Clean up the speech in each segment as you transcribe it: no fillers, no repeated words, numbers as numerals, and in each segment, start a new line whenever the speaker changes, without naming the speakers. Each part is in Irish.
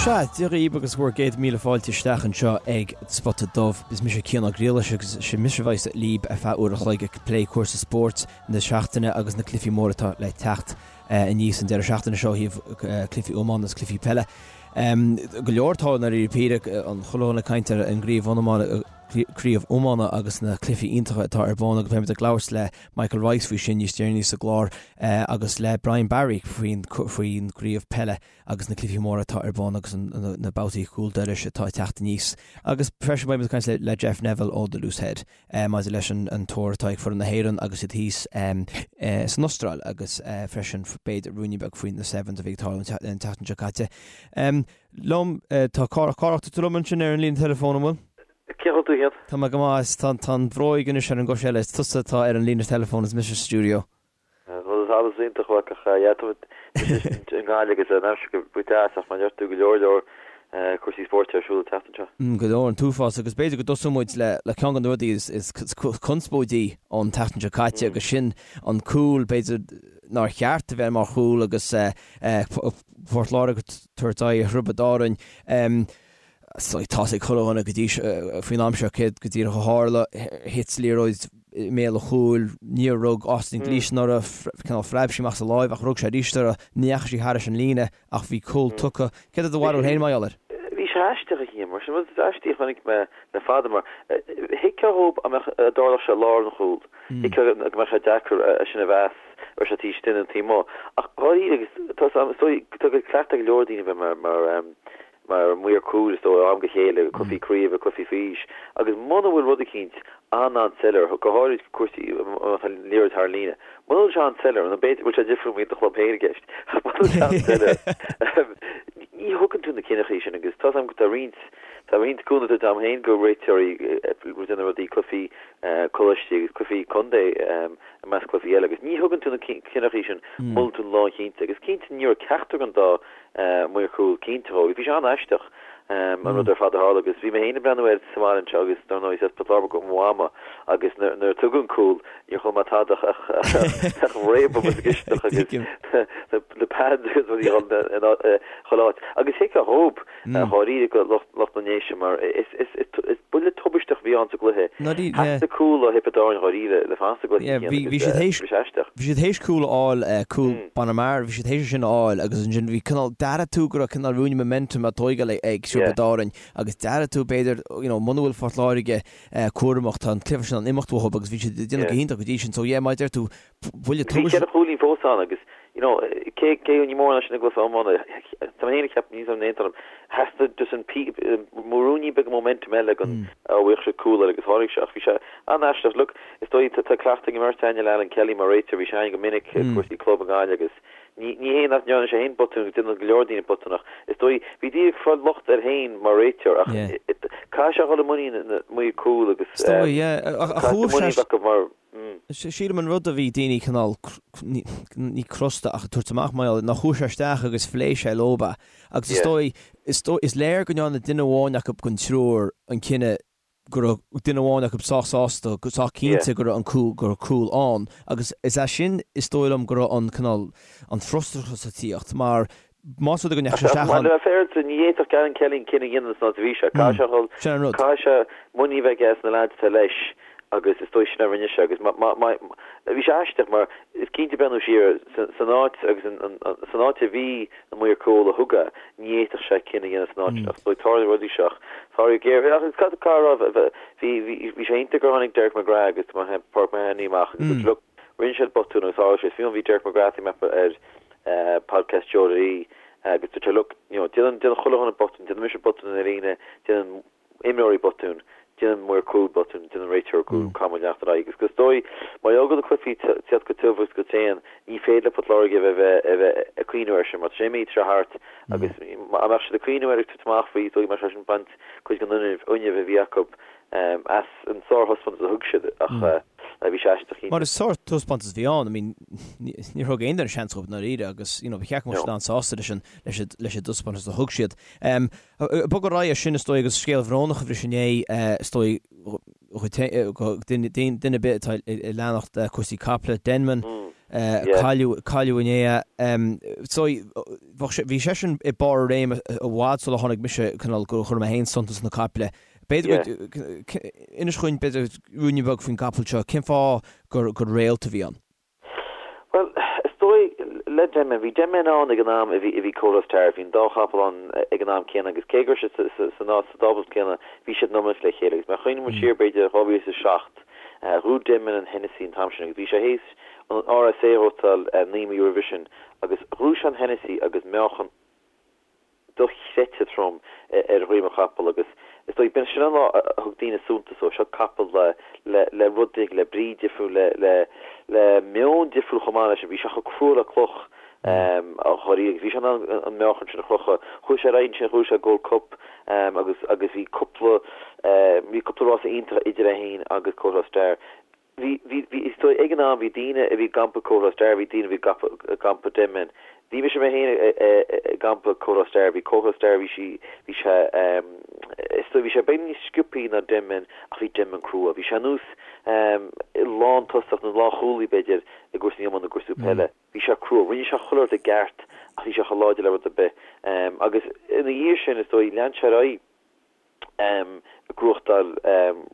Sea, Dia dhaoibh agus bhur gcéad míle fáilte isteach anseo ag Spota Dubh. Is mise Cian Ó Griallais agus is mise a bheas libh ar feadh uair a chloig ag plé cúrsaí spóirt na seachtaine agus na cluichí móra atá le teacht aníos an deireadh seachtaine seo ó thaobh cluichí iomána agus cluichí peile. Go leor atá i ndáiríre píre, an chuile dhuine ag caint ar an gcraobh iomána agus na cluichí iontacha atá ar bun agus beimid ag labhairt le Michael Rice faoi sin níos deireanaí sa gclár agus le Brian Barry faoin gcraobh peile agus na cluichí móra atá ar bun agus na babhtaí cúl dorais atá ag teacht aníos. Agus freisin beidh muid ag caint le Jeff Neville ó The Loose Head maidir leis an tour atá ag foireann na hÉireann agus iad thíos san Astráil agus freisin b'fhéidir ruainnín beag faoi na Sevens a bhí ag tarlú an tseachtain seo caite. Liom, tá Cárthach, Cárthach, tá tú liom ansin ar an líne teileafóin, an bhfuil?
Cén chaoi a bhfuil tú a Chian?
Tá mé go maith, tá an bhróig anois ar an gcois eile, is tusa atá ar an líne teileafóin is mise sa stiúideo.
Bhuel, is allas iontach uait ach yeah, tá muid i nGaillimh agus an aimsir go deas ach mar a deir tú go leor leor cúrsaí spóirt ar siúl an tseachtain seo.
Go leor, an t-uafás agus b'fhéidir go dtosóidh muid le ceann de na rudaí is conspóidí ón tseachtain seo caite agus sin an cúl b'fhéidir nár cheart a bheith mar chúl agus Port Láirge ag tabhairt aghaidh ar Thiobraid Árainn. Tá's ag chuile dhuine go dtí faoin am seo céard go díreach a tharla. Thit liathróid i mbéal an chúil, níor rug Austin Gleeson uirthi, cineál phreab sí amach as a láimh ach rug sé arís uirthi, ní dheachaigh sí thairis an líne ach bhí cúl tugtha. Céard é do bharúil féin mar gheall air?
Bhí sé aisteach a Chian, mar sin rud aisteach a chonaic mé le fada mar thuigfeá dhób dá mbeadh dá dtarlódh sé i lár an chúil, thuigfeá go mbeadh sé deacair é sin a mheas, raibh sé taobh istigh nó taobh amuigh. Ach dháiríre agus tá tá cleachtadh ag go leor daoine bheith mar mar mar maor cúil is dóigh ó am go chéile, cluichí craoibhe, cluichí faoi aois, agus muna bhfuil rud eicínt an-an-soiléir, go háirid cúrsaí má tá liathróid thar an líne, muna bhfuil sé an-soiléir, nó b'fhéidir go bhfuil sé difriúil má bhíonn do chlub féin i gceist, ach muna bhfuil sé an-soiléir, ní thugann tú na cinneachaí sin agus tá's agam go tá roinnt, tá roinnt cúnamh tugtha agam féin go réiteoirí ag déanamh rudaí, cluichí coláistí agus cluichí contae i measc cluichí eile agus ní thugann tú na cinneachaí sin muna bhfuil tú lánchinnte agus cinnte ní raibh ceachtar den dá maor cúil cinnte dhó. Bhí sé an-aisteach an rud ar fad a tharla agus bhí mé féin ag breathnú air sa bhaile anseo agus dar ndóigh is as Port Láirge do mhama agus nuair a tugadh an cúl níor chuala mé tada ach ach réabadh sa gcisteach agus na pads agus rudaí in chuile áit. Agus thuigfeá dhób dháiríre go lucht na nDéise mar is buille tubaisteach a bhí ann sa gcluiche. Theastaigh cúl ó Thiobraid Árann dháiríre le fanacht sa gcluiche agus bhí sé aisteach.
Bhí siad théis cúl a fháil, cúl Bonner Maher, bhí siad théis é sin a fháil agus ansin bhí cineál, d'airigh tú go raibh cineál ruainne momentum á tóigeáil ag Tiobraid Árainn agus d'airigh tú b'fhéidir, you know, muna bhfuil Phort Láirge cúramach, tá an cluiche sin in ann imeacht uathu agus bhí siad ag déanamh go hiontach go dtí sin. So yeah, mar a deir tú,
buille tubaiste. Bhí 4 chúilín fós ann agus, you know, cé, cé ní mór ná sin i gcluiche iomána, tá mé féin ag ceapadh, níl 'fhios agam an aontaíonn liom, theastaigh just an pí, ruainnín beag momentum eile go bhfaigheadh siad cúl eile agus tháinig sé ach bhí sé an-aisteach. Look, Is dóigh, tá cleachtadh ag an mbeirt againne le Alan Kelly mar réiteoir, bhí sé againn go minic i gcúrsaí club i nGaillimh agus ní ní hé nach ndearna sé féin botún agus déanann go leor daoine botúin ach is dóigh, bhí daoine ag fáil locht air féin mar réiteoir ach caithfidh sé a dhul i muinín na maoir cúil agus
Is dóigh, yeah, ach
caithfidh
chuaigh
muinín
sé,
acu mar.
Sílim an rud a bhí daoine cineál, ní crosta ach ag tabhairt amach mar gheall air, ná chuaigh sé isteach agus phléigh sé leob é agus is dóigh, is dóigh, is léir go ndearna duine amháin acu den triúr an cinneadh go raibh duine amháin acu sách sásta, sách cinnte go raibh an cúl, go raibh cúl ann agus is as sin is dóigh liom go raibh an cineál, an frustrachas ag tíocht mar más rud é go ndeachaigh sé
isteach
ann.
Mar a bheifear, ní fhéadfadh Alan Kelly an cinneadh a dhéanamh san áit a bhí sé. Caithfidh sé a dhul,
Sin an rud.
caithfidh sé muinín a bheith aige sna leaids atá leis agus is dóigh sin a rinne sé agus má, má, má, bhí sé aisteach mar is cinnte breathnú siar san áit agus san áit a bhí na maoir cúil a thug é, ní fhéadfadh sé cinneadh a dhéanamh san áit sin ach is dóigh tarlaíonn rudaí seo ach tarlaíonn géar ach cad cá raibh bhí bhí bhí sé iontach gur tháinig Derek McGrath agus Páirc Mahony amach agus dúirt look rinne siad botún agus tharla sé fiú bhí Derek McGrath ag meapadh ar podcast Joe Lee agus dúirt sé look you know déanann déanann chuile dhuine botún déanann mise botún ar líne déanann imreoirí botún, déanann maor cúil botún, déanann réiteoir cúil, caithfidh muid leanacht ar aghaidh. Agus is dóigh, mar gheall go bhfuil na cluichí ag teacht go tiubh agus go tréan, ní féidir le Port Láirge a bheith a bheith ag cuimhniú air sin, mar tá sé imithe, tá sé thart agus dá mbeadh siad ag cuimhniú air ag tabhairt amach faoi, is dóigh go mbeadh sé sin ag baint cuid den fhuinneamh a bhí acu as an sárthaispeántas a thug siad ach bhí sé aisteach
cinnte. Mar is sárthaispeántas a bhí ann, I mean, níor thug aon duine seans dóibh i ndáiríre agus, you know, ba cheart go mbeadh siad an-sásta leis an leis an dtaispeántas a thug siad. Bogadh ar aghaidh as sin, is dóigh, agus scéal bhrónach a bhris inné, is dóigh, do dhuine ar bith atá ag leanacht cúrsaí caiple, Denman, cailleadh, cailleadh inné é. Is dóigh, Bheadh sé, bhí seisean i barr a réime i bhfad sula tháinig mise, cineál, gur chuir mé féin suntas sna caiple. B'fhéidir go, inis dhúinn, b'fhéidir, ruainne beag faoin gcapall seo, cén fáth gur, gur réalt a bhí ann?
Bhuel, is dóigh, le Denman, bhí Denman ann ag an am a bhí, a bhí Kauto Star, bhí an dá chapall ann ag an am céanna agus cé go raibh siad sa, sa, sa stábla céanna, bhí siad in iomaíocht le chéile agus má chuimhníonn muid siar b'fhéidir 2007, ghnóthaigh Denman an Hennessy an t-am sin agus bhí sé théis an RSA a ghnóthachtáil 9 mí roimhe sin agus ghnóthaigh sé an Hennessy agus meáchan dochreidte trom ar dhroim an chapaill agus is dóigh, b'in sin an lá a thug daoine suntas dó, seo capall le, le, le rud éigin, le brí difriúil, le, le, le meon difriúil chomh maith leis sin, bhí sé chomh crua le cloch dháiríre agus bhí sé in ann an meáchan sin a chrochadh. Chuaigh sé ar aghaidh ansin, ghnóthaigh sé Gold Cup agus, agus bhí cúpla, bhí cúpla rása iontach idir é féin agus Kauto Star. Bhí, bhí, bhí, is dóigh, ag an am bhí daoine a bhí i gcampa Kauto Star, bhí daoine a bhí i gcampa Denman. Bhí mise mé féin i gcampa Kauto Star, bhí Kauto Star, bhí sí, bhí sé, is dóigh, bhí sé beagán níos sciobthaí ná Denman ach bhí Denman crua. Bhí sé ar nós lántosach nó lánchúlaí b'fhéidir i gcúrsaí iomána, i gcúrsaí peile. Bhí sé crua, rinne sé chuile rud i gceart ach bhí sé chomh láidir le rud ar bith. Agus ina dhiaidh sin, is dóigh, lean sé ar aghaidh. ag gnóthachtáil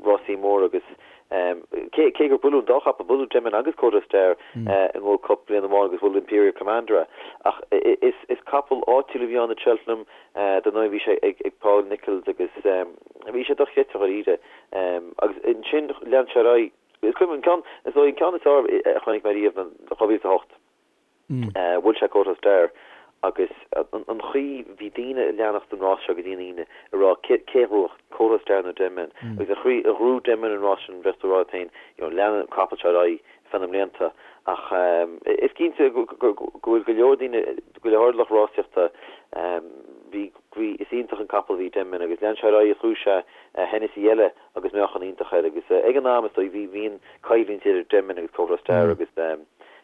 rásaí móra agus cé cé gur buaileadh an dá chapall, buaileadh Denman agus Kauto Star i nGold Cup bliain amháin agus bhuail Imperial Commander é. Ach is is capall áitiúil a bhí ann i Cheltenham, dar ndóigh bhí sé ag ag Paul Nicholls agus bhí sé dochreidte dháiríre. Agus ansin lean sé ar aghaidh. Is cuimhin an ceann, is dóigh an ceann is fearr a chonaic mé riamh ná 2008. Bhuail sé Kauto Star agus an chaoi, bhí daoine ag leanacht an rás seo go dtí an Aoine ag rá cé a ghnóthódh, Kauto Star nó Denman agus an chaoi a ghnóthaigh Denman an rás sin bheadh tú ag rá leat féin you know leanfaidh an capall seo ar aghaidh feadh na mblianta ach is cinnte go bhfuil go leor daoine, go leor lucht rásaíochta bhí, bhí, is iontach an capall a bhí Denman agus lean sé ar aghaidh ghnóthaigh sé Hennessy eile agus meáchan iontach air agus ag an am is dóigh bhí bhí an coimhlint idir Denman agus Kauto Star agus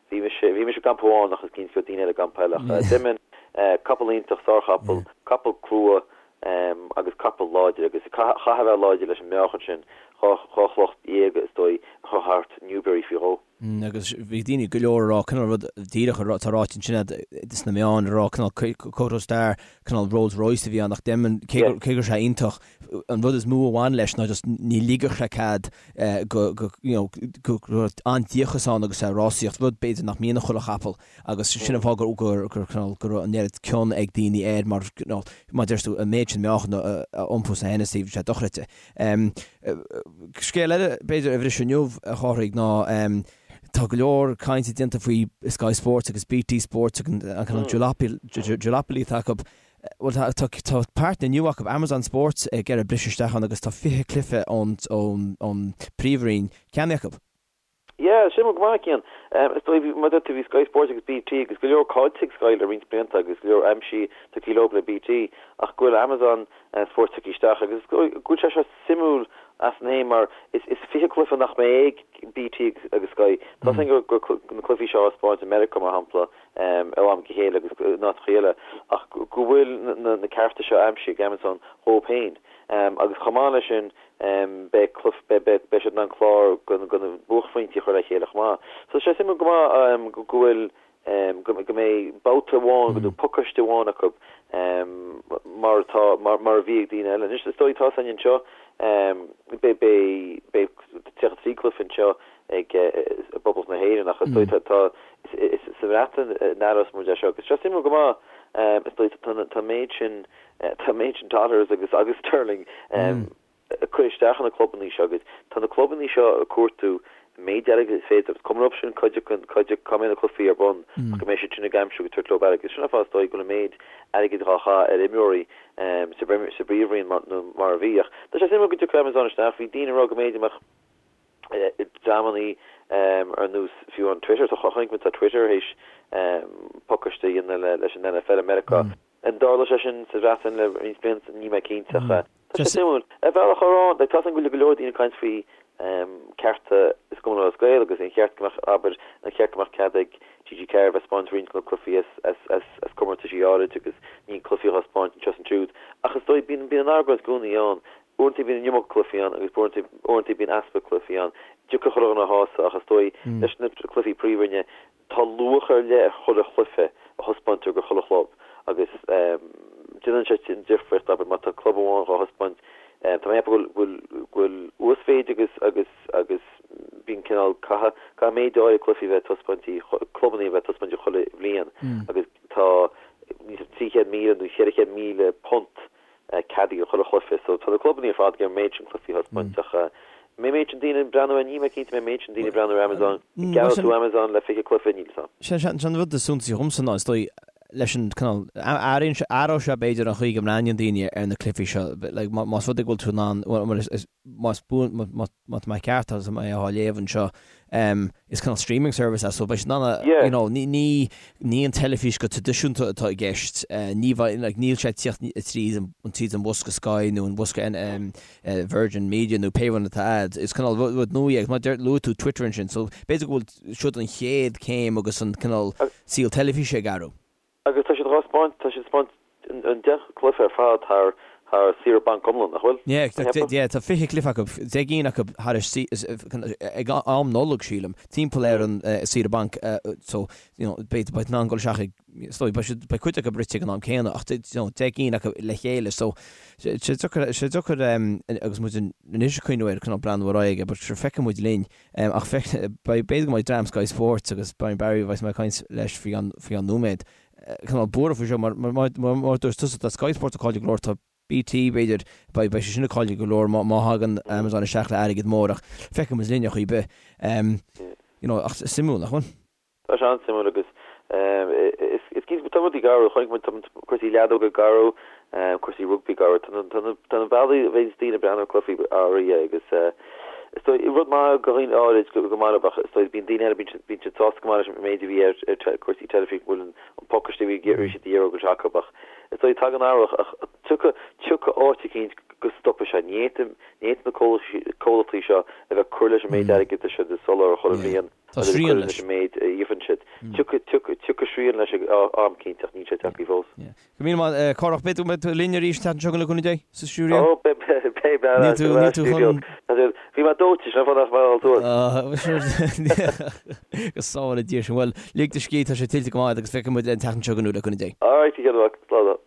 bhí mise bhí mise i gcampa amháin ach is cinnte go raibh daoine eile i gcampa eile ach Denman capall iontach sárchapall capall crua agus capall láidir agus chaithfeá a bheith láidir leis an meáchan sin 12 chloch is dóigh a chur thart Newbury faoi dhó.
Agus bhí daoine go leor ag rá cineál rud díreach atá ráite ansin sna meáin ag rá cineál Kauto Star cineál Rolls Royce a bhí ann ach Denman cé go raibh sé iontach an rud is mó a bhain leis ná just ní ligfeadh sé cead go go you know go raibh an-díocas ann agus é ag rásaíocht, rud b'fhéidir nach mbíonn i chuile chapall agus sin an fáth gur gur gur cineál go raibh an oiread cion ag daoine air mar you know mar deir tú an méid sin meáchan a iompú sa Hennessy bhí sé dochreidte. Scéal eile b'fhéidir a bhris inniu a Chárthaigh ná tá go leor cainte déanta faoi Sky Sports agus BT Sports agus an cineál duopoly atá acu. Bhuel, tá, tá, tá páirtnéir nua acu, Amazon Sports, ag iarraidh briseadh isteach ann agus tá 20 cluiche ón, ón, ón bPríomhroinn ceannaithe acu.
Yeah, sin go maith, Cian. Is dóigh, bhí, mar a deir tú, bhí Sky Sports agus BT agus go leor caillte ag Sky le roinnt blianta agus go leor aimsithe tugtha leo le BT ach go bhfuil Amazon Sports tugtha isteach agus is dóigh go bhfuil sé seo suimiúil as san fhéin mar is, is 20 cluiche nach mbeidh ag BT agus Sky. Tá a fhios againn go, go, na cluichí seo á spáint i Meiriceá mar shampla ó am go chéile agus in áiteacha eile, ach go bhfuil na cearta seo aimsithe ag Amazon dhóibh féin. Agus chomh maith leis sin, beidh beidh siad in ann clár de na buaicphointí a chur le chéile chomh maith. So sé suimiúil go maith go bhfuil go mbeidh babhta amháin nó pacáiste amháin acu mar atá mar a bhí ag daoine eile. Anois is dóigh tá a fhios againn anseo beidh beidh 33 cluiche anseo ag i bPoblacht na hÉireann ach is dóigh tá is sa Bhreatain a n-aireos muid é seo agus sé suimiúil go maith is dóigh tá tá an méid sin tá an méid sin dollars agus agus sterling ag cur isteach ina clubannaí seo agus tá na clubannaí seo ag cuartú an méid airgid is féidir agus cuma leo sin cuid acu cuid acu cá mbeidh na cluichí ar bun ach go mbeidh siad sin ag aimsiú agus tabhairt leo airgead. Sin an fáth is dóigh go bhfuil an méid airgid dhá chaith ar imreoirí sa sa bPríomhroinn mar nó mar a bhí ach tá sé suimiúil go dtiocfaidh Amazon isteach bhí daoine ag rá go mb'fhéidir mbeadh dreamannaí ar nós fiú an Twitter, tá chonaic muid tá Twitter théis pacáiste a dhéanamh leis an NFL i Meiriceá. An dtarlóidh sé sin sa Bhreatain le roinnt blianta? Níl mé cinnte ach tá sé suimiúil. Ar bhealach ar tá a fhios agam go bhfuil go leor daoine ag caint faoi cearta i gCumann Lúthchleas Gael agus an cheart go mbeadh, abair, an cheart go mbeadh cead ag TG4 bheith ag spáint roinnt de na cluichí as as as comórtaisí áirid agus ní cluichí á spáint anseo is ansiúd. Ach is dóigh bíonn bíonn an argóint i gcónaí ann. Uaireanta bíonn an iomarca cluichí ann agus uaireanta bíonn easpa cluichí ann. Deacair chuile dhuine a shásamh ach is dóigh leis na cluichí príomhroinne tá luach ar leith ar chuile chluiche a thaispeántar go chuile chlub. Agus déanann sé an difríocht, abair, má tá club amháin dhá thaispeáint, tá mé ag ceapadh go bhfuil, go bhfuil uasmhéid agus, agus, agus bíonn cineál, caithfidh, caithfidh méid áirithe cluichí a bheith ag taispeáint, clubanna a bheith ag taispeáint chuile bhliain agus tá níos 300,000 nó £400,000 ceadaithe do chuile chluiche. So tá na clubanna ar fad ag iarraidh an méid sin cluichí a thaispeáint ach an mbeidh an méid sin daoine ag breathnú air, níl mé cinnte an mbeidh an méid sin daoine ag breathnú ar Amazon. An gceannóidh tú Amazon le 20 cluiche? Níl
'fhios a'm. Sé an rud is suntasaí dhomsa ná is dóigh leis an cineál, athraíonn sé, athróidh sé b'fhéidir an chaoi go mbreathnaíonn daoine ar na cluichí seo. Like más rud é go bhfuil tú in ann, bhuel is, más buan, má tá mé ceart agus mé á léamh anseo, is cineál streaming service é so beidh siad in ann, you know, ní, ní, ní an teilifís go traidisiúnta atá i gceist, ní bheidh, like, níl sé ag tíocht tríd an, tríd an bhosca Sky nó an bhosca Virgin Media nó pé rud atá a'd, is cineál rud, rud nua é agus mar deir, luaigh tú Twitter ansin so b'fhéidir go bhfuil siod an chéad céim agus an cineál saol teilifíse ag athrú.
Agus tá siad dhá spáint, tá siad ag spáint an 10 cluiche ar fad thar thar saoire banc iomlán, nach bhfuil?
Yeah, yeah, tá 20 cluiche acu, 10 gcinn acu thar ag am Nollag, sílim, timpeall ar an saoire banc, so, you know, beidh beidh in ann dul isteach ag, is dóigh, beidh siad, beidh cuid acu rite ag an am céanna ach, you know, 10 gcinn acu le chéile, so, sé deacair, sé deacair agus muid anois ag cuimhniú air, cineál breathnú ar aghaidh, but sure, feicfidh muid linn. Ach b'fhéidir go mbeidh dream Sky Sports agus Brian Barry a bheas mé ag caint leis faoi cheann nóiméad, cineál buartha faoi seo mar mar dúirt tusa tá Sky Sports ag cailleadh go leor, tá BT b'fhéidir, beidh sé sin ag cailleadh go leor má thagann Amazon isteach le airgead mór ach feicfidh muid linn ar chaoi ar bith. You know, ach suimiúil, nach bhfuil?
Tá sé an-suimiúil agus is cinnte tá rudaí ag athrú, chonaic muid tá cúrsaí leadóga ag athrú, cúrsaí rugbaí ag athrú, tá na tá na bealaí a bhíonns daoine ag breathnú ar cluichí athraithe agus is dóigh rud maith do dhaoine áirid go maith leo ach is dóigh bíonn daoine eile bíonn siad bíonn siad sásta go maith leis an méid a bhí ar ar cúrsaí teilifíse go bhfuil an pacáiste a bhí a bhí siad a iarraidh go bhfuil sé acu ach is dóigh tagann athrú ach tiocfaidh tiocfaidh áit eicínt go stopfaidh sé, ní fhéadfaidh ní fhéadfaidh na comhlachtaí seo a bheith ag cur leis an méid airgid atá siad ag soláthar chuile bhliain.
Tá srian leis.
an méid a íocann siad. Tiocfaidh srian leis ag am cinnte ach níl sé tagtha fós.
Go míle maith, Cárthach. Beidh tú linn arís an tseachtain seo chugainn le cúnamh Dé, sa stiúideo?
Ó, beidh, beidh, beidh. Níl tú, níl tú chun. Bhí mé dóite, sin an fáth nach mbeidh all tuar.
Go sábhála Dia sinn. Bhuel, lig do scíth, tá sé tuillte go maith agat agus feicfidh muid an tseachtain seo chugainn le cúnamh Dé.
Alright, a Chian mhac. Slán.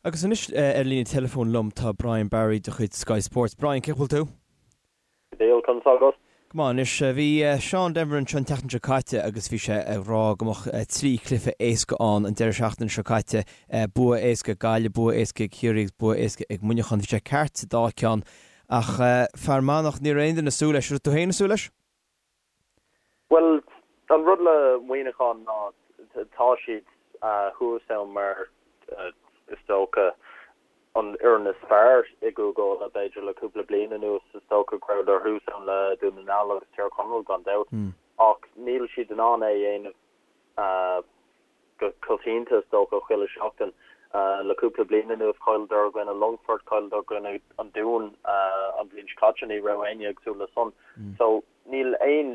Agus anois ar líne teileafóin liom tá Brian Barry de chuid Sky Sports. Brian, cén chaoi a bhfuil tú?
Go diail, conas tá agat?
Go maith anois. Bhí Seán Denvir anseo an tseachtain seo caite agus bhí sé ag rá go mbeadh 3 chluiche éasca ann an deireadh seachtaine seo caite, bua éasca ag Gaillimh, bua éasca ag Ciarraí agus bua éasca ag Muineachán. Bhí sé ceart sa dá cheann ach Fear Manach, ní raibh aon duine ag súil leis. Raibh tú féin ag súil leis?
Bhuel, an rud le Muineachán ná tá siad thuas ann mar is dócha an fhoireann is fearr i gCúige Uladh, b'fhéidir le cúpla bliain anuas. Is dócha go rabhadar thuas ann le Dún na nGall agus Tír Chonaill gan dabht. Ach níl siad in ann é a dhéanamh go coitianta, is dócha, chuile sheachtain. Le cúpla bliain anuas chailleadar i gcoinne Longfort, chailleadar i gcoinne an Dúin an bhliain seo caite, ní raibh éinne ag súil le san. So níl aon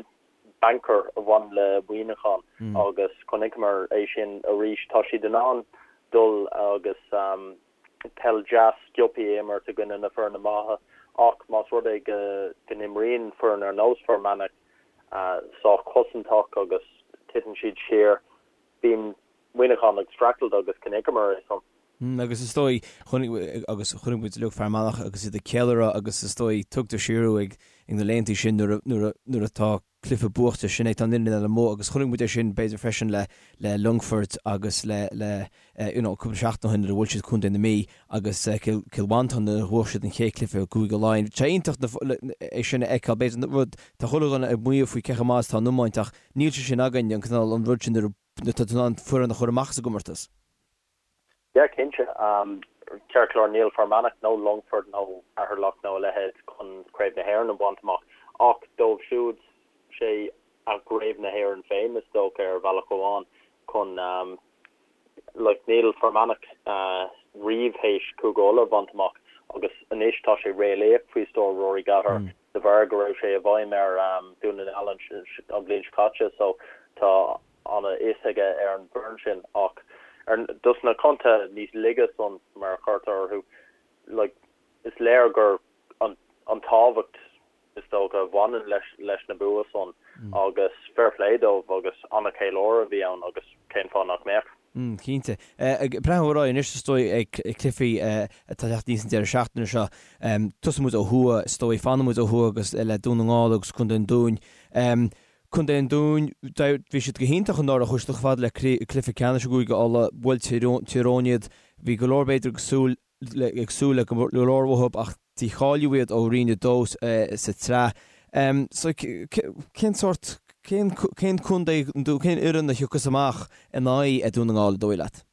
banker a bhaineann le Muineachán agus chonaiceamar é sin arís. Tá siad in ann dul agus peil deas sciobtha a imirt i gcoinne na foirne maithe ach más rud é go n-imríonn foireann ar nós Fear Manach sách cosantach agus titeann siad siar, bíonn Muineachán ag streachailt agus chonaiceamar é san.
Agus is dóigh, chonaic, agus chonaic muid uilig Fear Manach agus iad ag ceiliúradh agus is dóigh, tugtar siar thú ag na laethanta sin nuair a, nuair a, nuair atá cluiche buachta, sin é, tá an fhoireann eile amuigh agus chonaic muid é sin b'fhéidir freisin le, le Longfort agus le, le, you know, cúpla seachtain ó shin nuair a bhuail siad Contae na Mí agus Cill, Cill Mhantáin nuair a bhuaigh siad an chéad chluiche i gCúige Laighean. Tá sé iontach na, é sin a fheiceáil, b'fhéidir rud, tá chuile dhuine ag maíomh faoi cé chomh maith is atá an iomáint ach níl sé sin againn, an cineál, an rud sin nuair a, nuair atá tú in ann foireann a chur amach as an gcomórtas.
Yeah, cinnte. Ceart go leor, níl Fear Manach nó Longfort nó Ceatharlach nó a leithéid chun Craobh na hÉireann a bhaint amach, ach dóibh siúd, sé a gCraobh na hÉireann féin, is dócha, ar bhealach amháin, chun, like, níl Fear Manach riamh théis Cúige Uladh a bhaint amach agus anois tá sé réalaíoch faoi stiúir Rory Gallagher de bharr go raibh sé i bhfeidhm ar Dún na nGall an bhliain seo caite so tá ana fhios aige ar an bhfoireann sin ach ar dos na contaetha níos laige san mar a chuirtear orthu like is léir gur an an tábhacht is dócha a bhaineann leis leis na bua san agus fair play dóibh agus ana cheiliúradh a bhí ann agus cén fáth nach mbeadh.
Cinnte. Ag breathnú ar aghaidh anois is dóigh ag cluichí atá ag teacht aníos an deireadh seachtaine seo. Tosóidh muid ó thuaidh is dóigh, fanfaidh muid ó thuaidh agus le Dún na nGall agus Contae an Dúin. Contae an Dúin, bhí siad go hiontach anuraidh, chuaigh siad chomh fada le cluiche ceannais i gCúige Uladh, bhuail Tír Eoghain iad. Bhí go leor b'fhéidir ag súil ag súil le go leor uathu ach dícháilíodh iad ó Roinn 2 sa tsraith. So cén sórt, cén cén contae, cén fhoireann a thiocfas amach in aghaidh Dún na nGall, an dóigh leat?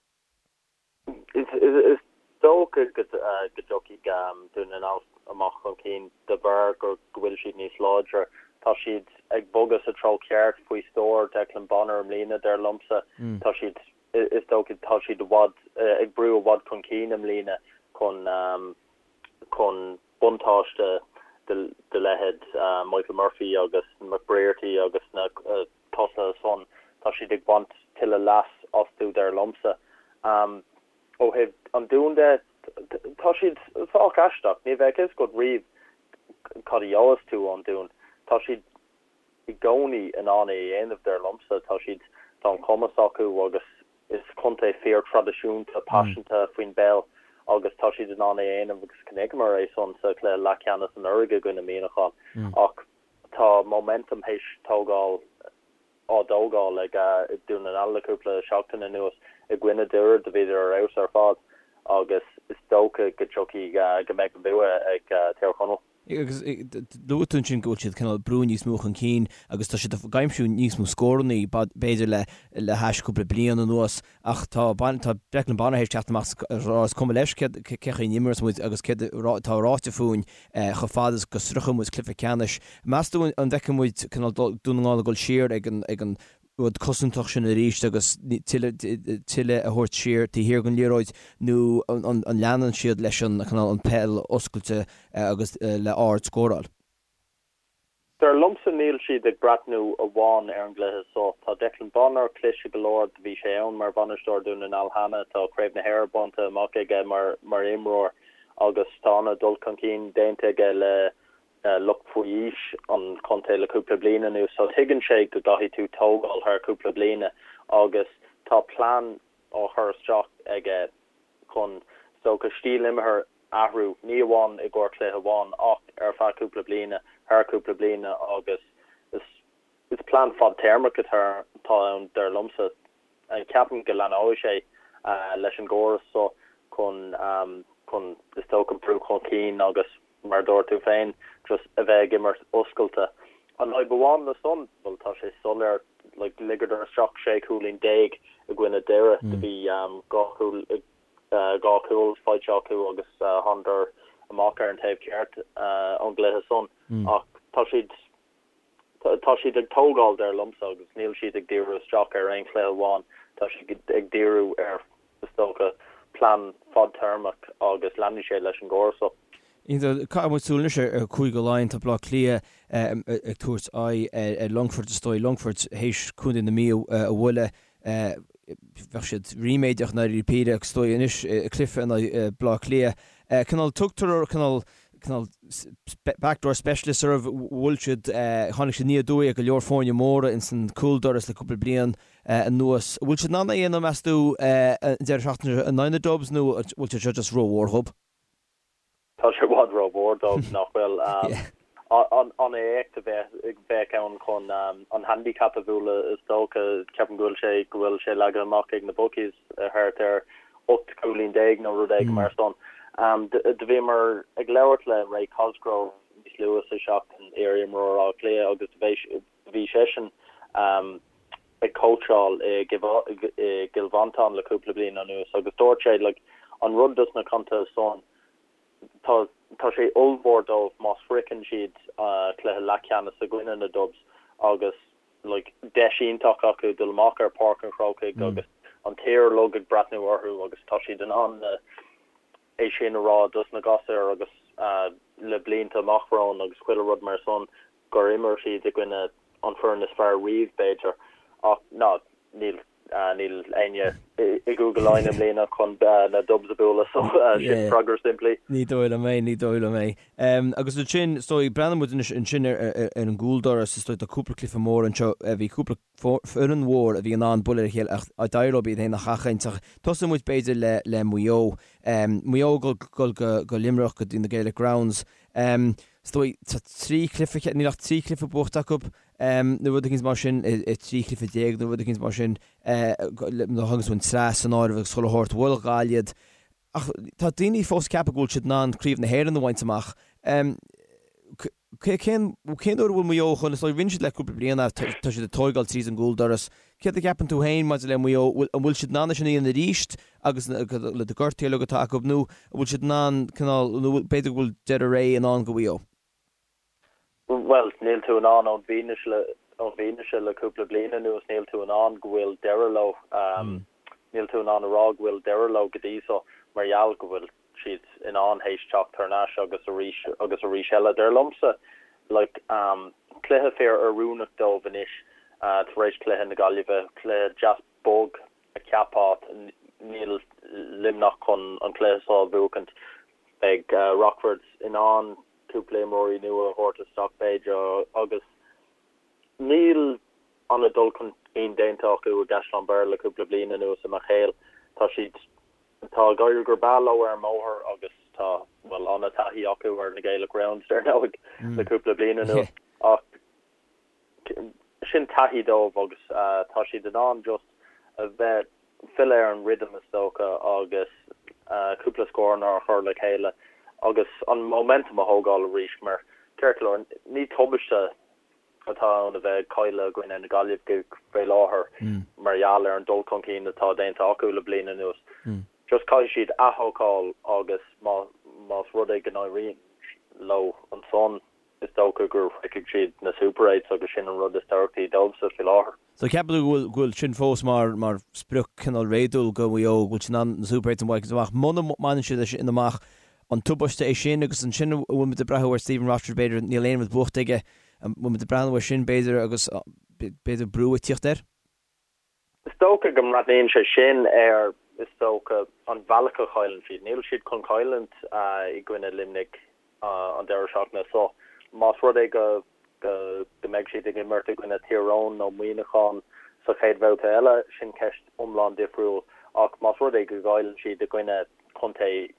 Is dócha go dtiocfaidh Dún na nGall amach chun cinn de bharr go bhfuil siad níos láidre. Tá siad ag bogadh sa treo ceart faoi stiúir Declan Bonner i mbliana, dar liomsa. Tá siad Is dócha tá siad i bhfad ag brú i bhfad chun cinn i mbliana chun chun buntáiste de leithéid Michael Murphy agus McBrearty agus na tosaithe san. Tá siad ag baint tuilleadh leas astu dar liomsa. Ó thaobh an Dúin de, tá siad sách aisteach. Ní bheadh fhios agat riamh cad a gheobhas tú ón Dún. Tá siad i gcónaí in ann é a dhéanamh, dar liomsa. Tá siad, tá an cumas acu agus is contae fíor-traidisiúnta, paiseanta faoin bpeil agus tá siad in ann é a dhéanamh agus chonaiceamar é san sa chluiche leathcheannais anuraidh i gcoinne Muineachán. Ach tá momentum théis tógáil, á dtógáil ag Dún na nGall le cúpla seachtain anuas i gcoinne Doire, do bhíodar ar fheabhas ar fad agus is dócha go dtiocfaidh, go mbeidh an bua ag Tír Chonaill.
Agus luaigh tú ansin go bhfuil siad cineál ag brú níos mó chun cinn agus tá siad ag aimsiú níos mó scórannaí b'fhéidir le le hais cúpla bliain anuas ach tá tá Declan Bonner théis teacht amach is rá is cuma leis cé cén chaoi a n-imreos muid agus céard atá ráite fúinn chomh fada is go sroicheann muid cluiche ceannais. Meas tú an bhfeicfidh muid cineál Dún na nGall ag dul siar ag an ag an rud cosantach sin arís agus tuilleadh a thabhairt siar taobh thiar den liathróid nó an leanann siad leis an cineál an peil oscailte agus le ard-scóráil?
Dar liomsa níl siad ag breathnú amháin ar an gcluiche seo. Tá Declan Bonner cliste go leor, do bhí sé ann mar bhainisteoir Dún na nGall cheana, tá Craobh na hÉireann bainte amach aige mar mar imreoir agus tá an-dul chun cinn déanta aige le lucht faoi aois an chontae le cúpla bliain anuas so tuigeann sé go gcaithfidh tú tógáil thar cúpla bliana agus tá plean á chur isteach aige chun is dócha stíl imeartha a athrú, ní amháin i gcomhair cluiche amháin ach ar feadh cúpla bliana, thar cúpla bliana agus is plean fadtéarmach atá ann dar liomsa. Ceapaim go leanóidh sé leis an gcóras so chun chun is dócha brú chun cinn agus mar a dúirt tú féin just a bheith ag imirt oscailte. An fhadhb amháin le san, bhuel tá sé soiléir, like ligeadar isteach 16 cúilín i gcoinne Doire, do bhí 2 chúl 2 chúl faighte acu agus thánadar amach ar an taobh ceart ón gcluiche san ach tá siad Tá siad ag tógáil, dar liomsa, agus níl siad ag díriú isteach ar aon chluiche amháin. Tá siad ag díriú ar, is dócha, plean fadtéarmach agus leanfaidh sé leis an gcóras
seo. Caithfidh muid súil anois ar Chúige Laighean. Tá Baile Átha Cliath ag tabhairt aghaidh ar Longfort, is dóigh. Longfort théis Contae na Mí a bhualadh. Bheadh siad ríméadach i ndáiríre píre agus is dóigh anois cluiche in aghaidh Baile Átha Cliath. Cineál tugtar cineál cineál backdoor specialists orthu, bhuail siad, tháinig siad aniar aduaidh ar go leor foirne móra ins an cúldoras le cúpla bliain anuas. An bhfuil siad in ann é a dhéanamh meas tú an deireadh seachtaine seo in aghaidh na Dubs nó an bhfuil sé seo just rómhór dhób?
Tá sé i bhfad rómhór dóibh, nach bhfuil? An éacht a bheadh ann chun an handicap a bhualadh is dócha. Ceapaim go bhfuil sé go bhfuil sé leagtha amach ag na bookies thart ar 18 cúilín nó rud éigin mar san. Do bhíomar ag labhairt le Ray Cosgrove níos luaithe sa seachtain, iar-imreoir Átha Cliath, agus do bhí seisean ag cóitseáil i gCill Mhantáin le cúpla bliain anuas agus dúirt sé like an rud dos na contaetha san tá tá sé ollmhór dóibh má shroicheann siad cluiche leathcheannais i gcoinne na Dubs agus like deis iontach acu dul amach ar Páirc an Chrócaigh agus an tír uilig ag breathnú orthu agus tá siad in ann é sin a rá dos na gasúir agus le blianta amach romhainn agus chuile rud mar san gur imir siad i gcoinne an foireann is fearr riamh b'fhéidir ach ná níl. Níl éinne i gCúige Laighean i mbliana chun na Dubs a bhualadh so sin freagra simplí.
Ní dóigh liom é, ní dóigh liom é. Agus ansin, is dóigh, breathnaíonn muid anois ansin ar an gcúldoras, is dóigh tá cúpla cluiche mór anseo, bhí cúpla foireann mhór a bhí in ann bualadh ar a chéile ach d'éirigh leo iad féin a sheachaint. Ach tosóidh muid b'fhéidir le le Maigh Eo. Maigh Eo ag dul go Luimneach go dtí na Gaelic Grounds. Is dóigh, tá 3 chluiche, níl ach 3 chluiche buachta acu. nó rud éicint mar sin, i 13 chluiche nó rud éicint mar sin, nuair a thagann tú an tsraith san áireamh agus chuile shórt, bhuail Gaillimh iad. Ach tá daoine fós ag ceapadh go bhfuil siad in ann Craobh na hÉireann a bhaint amach. Cén cén uair a bhfuil Maigh Eo chun, is dóigh, rinne siad le cúpla bliain tá siad ag tóigeáil tríd an gcúldoras. Céard a cheapann tú féin maidir le Maigh Eo, an bhfuil siad in ann é sin a dhéanamh arís agus le na gortuithe uilig atá acu nó an bhfuil siad in ann cineál, nó b'fhéidir go bhfuil deireadh ré i ndán do Mhaigh Eo?
Bhuel, níl tú in ann ón bhfianaise le ón bhfianaise le cúpla bliain anuas, níl tú in ann go bhfuil deireadh leo. Níl tú in ann a rá go bhfuil deireadh leo go dtí so mar gheall go bhfuil siad in ann théis teacht thar n-ais agus arís agus arís eile. Dar liomsa, like, cluiche fíor oiriúnach dóibh anois tar éis cluiche na Gaillimhe, cluiche deas bog a cheapfá, níl Luimneach chun an cluiche seo a bhuachaint. Beidh Rockford in ann cúpla imreoirí nua a thabhairt isteach b'fhéidir agus níl an-dul chun cinn déanta acu i gCaisleán Bhéarra le cúpla bliain anuas i mo chéill. Tá siad, tá ag éirí go breá leo ar an mbóthar agus tá, bhuel, an-taithí acu ar na Gaelic Grounds dar ndóigh le cúpla bliain anuas ach sin taithí dóibh agus tá siad in ann just a bheith, filleadh ar an rhythm is dócha agus cúpla scóranna a chur le chéile agus an momentum a thógáil arís mar ceart go leor ní tubaiste atá ann a bheith ag cailleadh i gcoinne na Gaillimhe faoi láthair mar gheall ar an dul chun cinn atá déanta acu le bliain anuas. Just caithfidh siad aththógáil agus más rud é go n-éiríonn leo ansan is dócha go shroichfidh siad na Super Eights agus sin an rud is tábhachtaí dóibhse faoi láthair.
So ceapann tú go bhfuil, go bhfuil sin fós mar, mar sprioc cineál réadúil do Mhaigh Eo, go bhfuil siad in ann na Super Eights a bhaint amach. Muna mbaineann siad é sin amach, an tubaiste é sin agus ansin an bhfuil muid ag breathnú ar Stephen Rochford b'fhéidir, níl aon rud buachta aige, an bhfuil muid ag breathnú air sin b'fhéidir agus b'fhéidir brú ag tíocht air?
Is dócha go mbreathnaíonn sé sin ar, is dócha, an bhealach a chailleann siad. Níl siad chun cailliúint i gcoinne Luimnigh an deireadh seachtaine seo. Más rud é go go mbeidh siad ag imirt i gcoinne Tír Eoghain nó Muineachán sa chéad bhabhta eile, sin ceist iomlán difriúil. Ach más rud é go gcailleann siad i gcoinne contae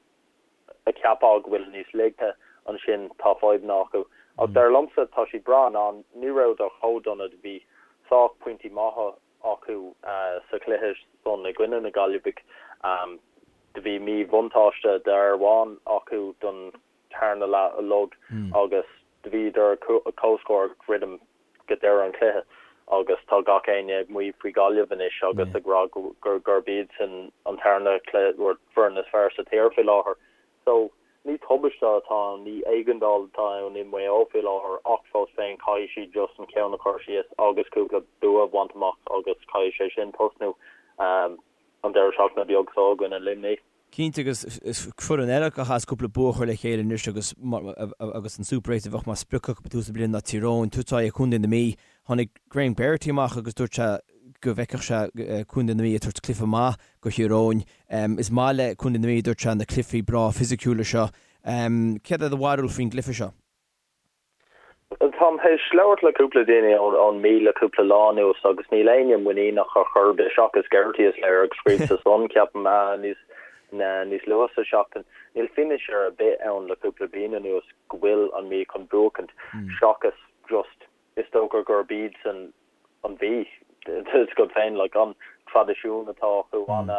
a cheapfá go bhfuil níos laige, ansin tá fadhbanna acu. Ach dar liomsa, tá siad breá in ann, ní rabhadar chomh dona, do bhí sách pointí maithe acu sa chluiche san i gcoinne na Gaillimhigh. Do bhí míbhuntáiste d'fhear amháin acu don tarna leath uilig agus do bhíodar comhscór ag druidim go deireadh an chluiche agus tá gach éinne ag maíomh faoi Ghaillimh anois agus ag rá gurb iadsan an tarna foireann is fearr sa tír faoi láthair. So, ní tubaiste atá ann, ní éigeandáil atá ann i Maigh Eo faoi láthair ach fós féin caithfidh siad just an ceann a chur síos agus cúpla bua a bhaint amach agus caithfidh sé sin tosnú an deireadh seachtaine beag seo i gcoinne Luimnigh.
Cinnte, agus is foireann eile a chaithfeas cúpla bua a chur le chéile anois agus agus an Super 8 a bheadh mar sprioc acu ag tús na bliana ná Tír Eoghain, tabhairt aghaidh ar Chontae na Mí. Tháinig Graham Geraghty amach agus dúirt sé go bhfeicfeadh sé Contae na Mí ag tabhairt cluiche maith do Thír Eoghain. Is maith le Contae na Mí, a dúirt sé, na cluichí breá fisiciúla seo. Céard é do bharúil faoin gcluiche seo?
Táim théis labhairt le cúpla duine ón Mí le cúpla lá anuas agus níl éinne muiníneach ar chor ar bith seachas Geraghty is léir ag scríobh sa Sun, ceapaim, níos níos luaithe sa seachtain. Níl fianaise ar bith ann le cúpla bliain anuas go bhfuil an Mí chun buachaint seachas just is dócha gurb iadsan an Mhí, tá a fhios agat féin, like an traidisiún atá acu, an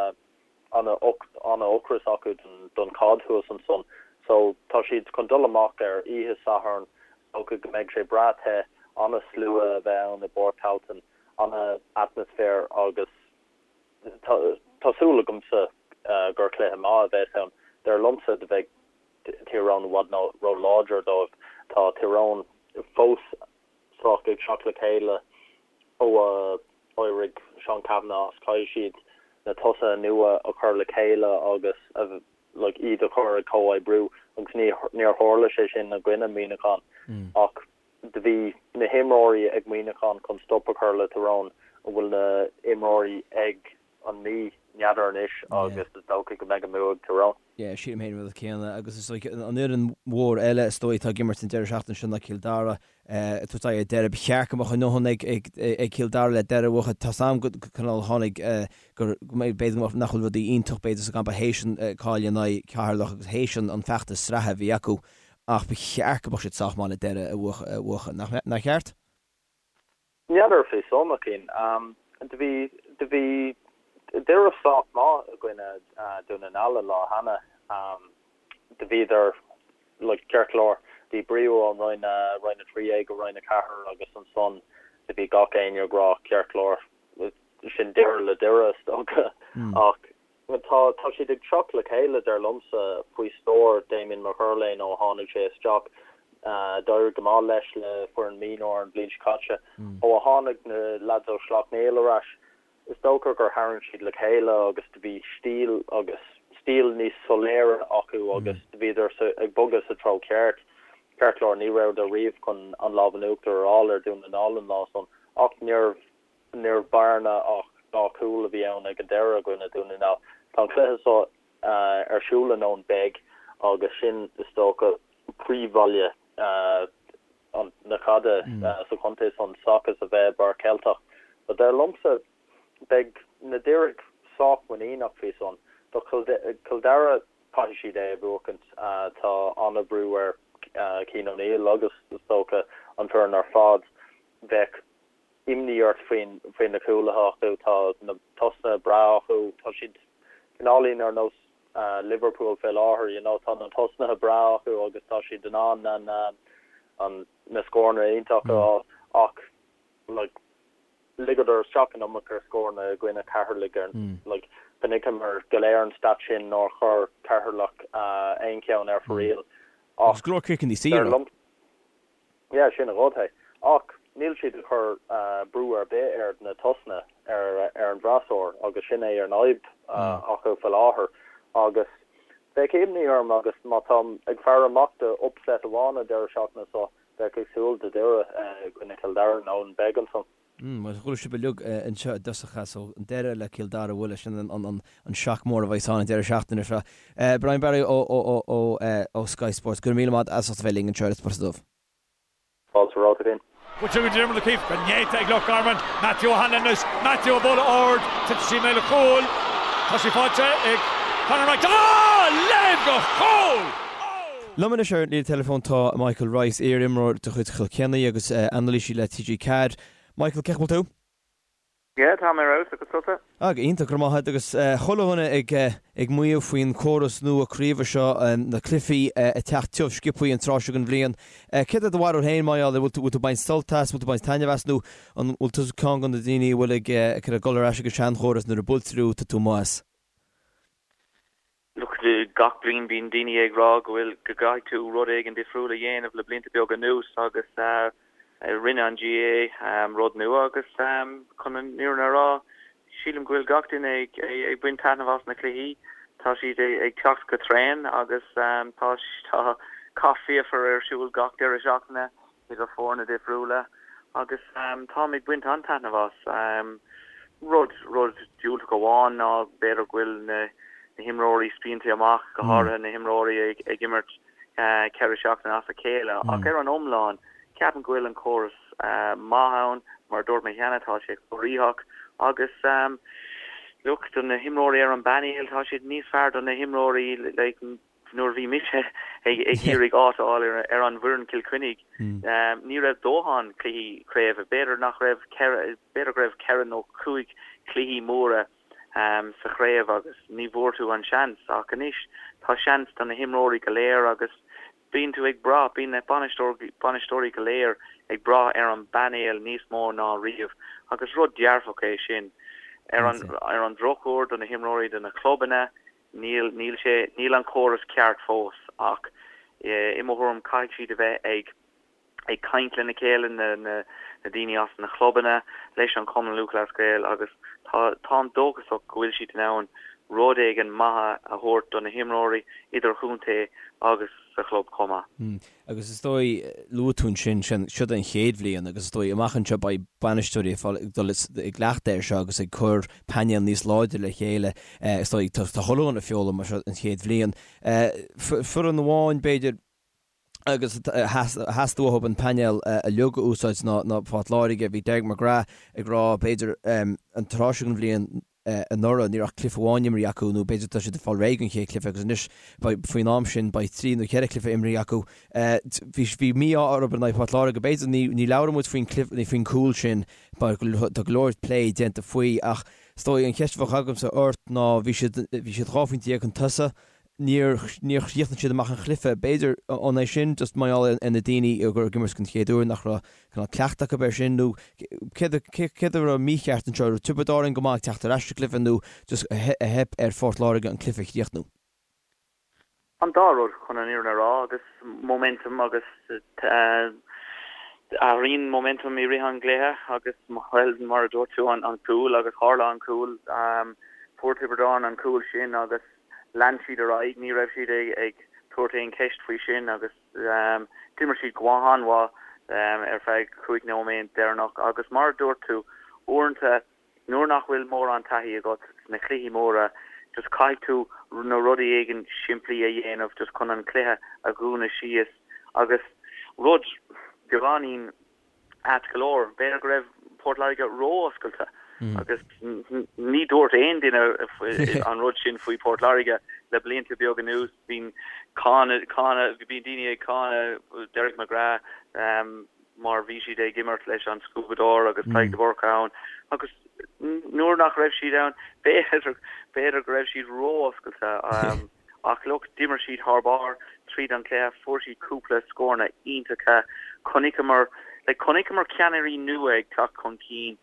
an-ocras acu don chaid thuas ansan. So tá siad chun dul amach ar oíche Sathairn, is dócha go mbeidh sé breá te, an-slua a bheith ann i bPáirc Tailteann, an-atmaisféar agus tá súil agamsa gur cluiche maith a bheas ann. Dar liomsa do bheidh Tír Eoghain i bhfad ró-láidir dóibh. Tá Tír Eoghain fós sách ag teacht le chéile ó a d'éirigh Seán Cavanagh as. Caithfidh siad na tosaithe nua a chur le chéile agus like iad a chur ag comhoibriú agus ní níor tharla sé sin i gcoinne Muineachán ach do bhí na himreoirí ag Muineachán chun stop a chur le Tyrone. An bhfuil na imreoirí ag an Mí? N'fheadar anois agus is dócha go mbeidh an bua ag Tyrone.
Yeah, sílim féin an rud céanna agus is dóigh an fhoireann mhór eile is dóigh atá ag imirt an deireadh seachtaine seo ná Cill Dara ag tabhairt aghaidh ar Doire. Ba cheart go mbeadh a ndóthain ag Cill Dara le Doire a bhuachan. Tá's a'm go cineál tháinig gur b'fhéidir nach bhfuil rudaí iontach b'fhéidir sa gcampa théis an cailleadh in aghaidh Cheatharlach agus théis an feachtas sraithe a bhí acu ach ba cheart go mbeadh siad sách maith le Doire a bhuachan. Nach ceart?
N'fheadar faoi san, a Chian. Do bhí, do bhí Doire sách maith i gcoinne Dún na nGall an lá cheana. Do bhíodar, like, ceart go leor, díbríodh ón Roinn, Roinn 13 go Roinn 4 agus ansan do bhí gach éinne ag rá ceart go leor, sin deireadh le Doire is dócha. Ach Tá tá siad ag teacht le chéile, dar liomsa, faoi stiúir Damien McErlain ó tháinig sé isteach. D'éirigh go maith leis le foireann mionúir an bhliain seo caite. Ó a tháinig na leaids ó Shleacht Néill ar ais, is dócha gur tharraing siad le chéile agus do bhí stíl agus stíl níos soiléire acu agus do bhíodar ag bogadh sa treo ceart. Ceart go leor, ní rabhadar riamh chun an lámh in uachtar a fháil ar Dún na nGall an lá san ach níorbh Níorbh bearna ach dá chúl a bhí ann ag an deireadh i gcoinne Dún na nGall. Tá an cluiche seo ar siúl in Eoin Beag agus sin, is dócha, príomhbhaile na caide sa chontae san seachas a bheith i bPáirc Cheilteach. So dar liomsa, beidh na Doireadh sách muiníneach faoi san. Do Chill Dara, caithfidh siad é a bhuachaint. Tá an-bhrú ar Cian O'Neill agus, is dócha, an foireann ar fad. Bheadh imní ort faoi na cúlaithe acu. Tá na tosnaithe breá acu. Tá siad cineáilín ar nós Liverpool fé láthair, you know. Tá na tosnaithe breá acu agus tá siad in ann an na scóranna iontacha a fháil ach like ligeadar isteach an iomarca scóranna i gcoinne Cheatharlaigh ar like chonaiceamar go léir an stat sin nár chuir Ceatharlach aon cheann ar fóraoil
ach Agus go leor ciceanna saora.
Yeah, sin an rud é. Ach níl siad ag cur brú ar bith ar na tosnaithe ar an bhfreasúr agus sin é an fhadhb acu faoi láthair. Agus bheadh imní orm agus má táim ag faire amach do upset amháin an deireadh seachtaine seo, bheadh ag súil do Doire i gcoinne Chill Dara in Eoin Beag ansan.
Bhuel, chuala sibh uilig anseo i dtosach é, so an deireadh le Cill Dara a bhualadh, sin an shock mór a bheas ann an deireadh seachtaine seo. Brian Barry ó Sky Sports, go raibh míle maith as ucht a bheith linn anseo ar An Spota Dubh.
Fáilte romhat a Fhinn.
Buailte go Diarmuid O'Keeffe go néata ag Loch Garman. Matthew O'Hanlon anois. Matthew ag bualadh ard. Titeann sí i mbéal an chúil. Tá sí faighte ag Conor Wright. Ah! Léim go chúl!
Liom anois ar an líne teileafóin tá Michael Rice, iar-imreoir de chuid Chill Chainnigh agus anailísí le TG4. Michael, cén chaoi a bhfuil tú?
Yeah, tá mé ar fheabhas, agus tusa?
Ah, go hiontach, go raibh maith agat. Agus chuile dhuine ag ag maíomh faoin córas nua craoibhe seo, na cluichí ag teacht tiubh sciobthaí an tráth seo den bhliain. Céard é do bharúil féin, mar gheall air? Bhfuil tú bhfuil tú ag baint sult as, bhfuil tú ag baint taitneamh as nó an bhfuil tú ceann de na daoine a bhfuil ag ag dul ar ais ag an seanchóras nuair a buailtear thú, tá tú amuigh as?
Look, gach bliain bíonn daoine ag rá go bhfuil, go gcaithfidh tú rud éigin difriúil a dhéanamh le blianta beaga anuas agus rinne an GAA rud nua agus chun an fhírinne a rá, sílim go bhfuil gach duine ag ag baint taitneamh as na cluichí. Tá siad ag teacht go tréan agus tá tá cath fíochmhar ar siúl gach deireadh seachtaine. idir foirne difriúla agus táim ag baint an-taitneamh as. Rud, rud diúltach amháin ná b'fhéidir go bhfuil na himreoirí spíonta amach, go háirithe na himreoirí ag imirt 4 seachtaine as a chéile ach ar an iomlán ceapaim go bhfuil an córas maith ann, mar a dúirt mé cheana tá sé corraitheach agus look do na himreoirí ar an bpainéal tá siad níos fearr do na himreoirí like Nuair a bhí mise ag iarraidh áit a fháil ar an bhfoireann Cill Chainnigh, ní raibh dóthain cluichí craoibhe. B'fhéidir nach raibh b'fhéidir go raibh ceithre nó cúig cluichí móra sa chraobh agus ní bhfuair tú an seans. Ach anois tá seans do na himreoirí go léir agus bíonn tú ag brath, bíonn na bainisteoirí go léir ag brath ar an bpainéal níos mó ná riamh agus rud dearfach é sin. Ar an drochuair do na himreoirí, do na clubanna, Níl, níl sé, níl an córas ceart fós ach i mo thuairim caithfidh siad a bheith ag, ag caint lena chéile, na, na, na daoine as na clubanna, leis an Chumann Lúthchleas Gael agus tá, táim dóchasach go bhfuil siad in ann rud éigin maith a thabhairt do na himreoirí idirchontae agus. sa chlub chomh maith.
Agus is dóigh, luaigh tú ansin, sin, siod an chéad bhliain agus is dóigh amach anseo beidh bainisteoirí ag fáil, ag dul i gcleachtadh air seo agus ag cur painéal níos láidre le chéile. Is dóigh, tá chuile dhuine ag foghlaim mar seo an chéad bhliain. Foireann amháin, b'fhéidir, agus theastaigh uathu an painéal uilig a úsáid ná ná Port Láirge. Bhí Derek McGrath ag rá, b'fhéidir, an tráth seo den bhliain anuraidh ní raibh ach cluiche amháin imrithe acu nó b'fhéidir tá siad ag fáil réidh don chéad chluiche agus anois beidh faoin am sin beidh trí nó cheithre chluiche imrithe acu. Bhí bhí mí-ádh orthu in aghaidh Port Láirge. B'fhéidir ní ní labhróidh muid faoin cluiche nó faoin gcúl sin mar tá go leor plé déanta faoi ach is dóigh an cheist a bheadh agamsa ort ná bhí siad bhí siad 12 phointe chun tosaigh Níor, níor chríochnaigh siad amach an chluiche. B'fhéidir, an é sin just mar gheall ar na daoine a ag imirt den chéad uair nach raibh cineál cleachtadh acu air sin nó céard, céard a raibh mícheart anseo? Raibh Tiobraid Árann go maith ag teacht ar ais sa gcluiche nó just a theip ar Phort Láirge an cluiche a chríochnú?
An dá rud, chun an fhírinne a rá, agus momentum agus athraíonn momentum i rith an gcluiche agus, bhuel, mar a dúirt tú, an cúl agus tharla an cúl, fuair Tiobraid Árann an cúl sin agus lean siad ar aghaidh, ní raibh siad ag tabhairt aon cheist faoi sin agus d'imir siad go han-mhaith ar feadh 5 nóiméad deireanach agus mar a dúirt tú, uaireanta nuair nach bhfuil mórán taithí agat sna cluichí móra just caithfidh tú na rudaí éigin simplí a dhéanamh just chun an cluiche a dhúnadh síos agus rud beagáinín ait go leor. B'fhéidir go raibh Port Láirge ró-oscailte agus ní dúirt aon duine an rud sin faoi Port Láirge le blianta beaga anuas. Bíonn cáineadh, cáineadh, bíonn daoine ag cáineadh Derek McGrath mar bhí siad ag imirt leis an scuabadóir agus Tadhg de Búrca ann agus nuair nach raibh siad ann, b'fhéidir, b'fhéidir go raibh siad ró-oscailte. Ach look, d'imir siad thar barr tríd an chluiche, fuair siad cúpla scóranna iontacha, chonaiceamar, like, chonaiceamar ceannairí nua ag teacht chun cinn,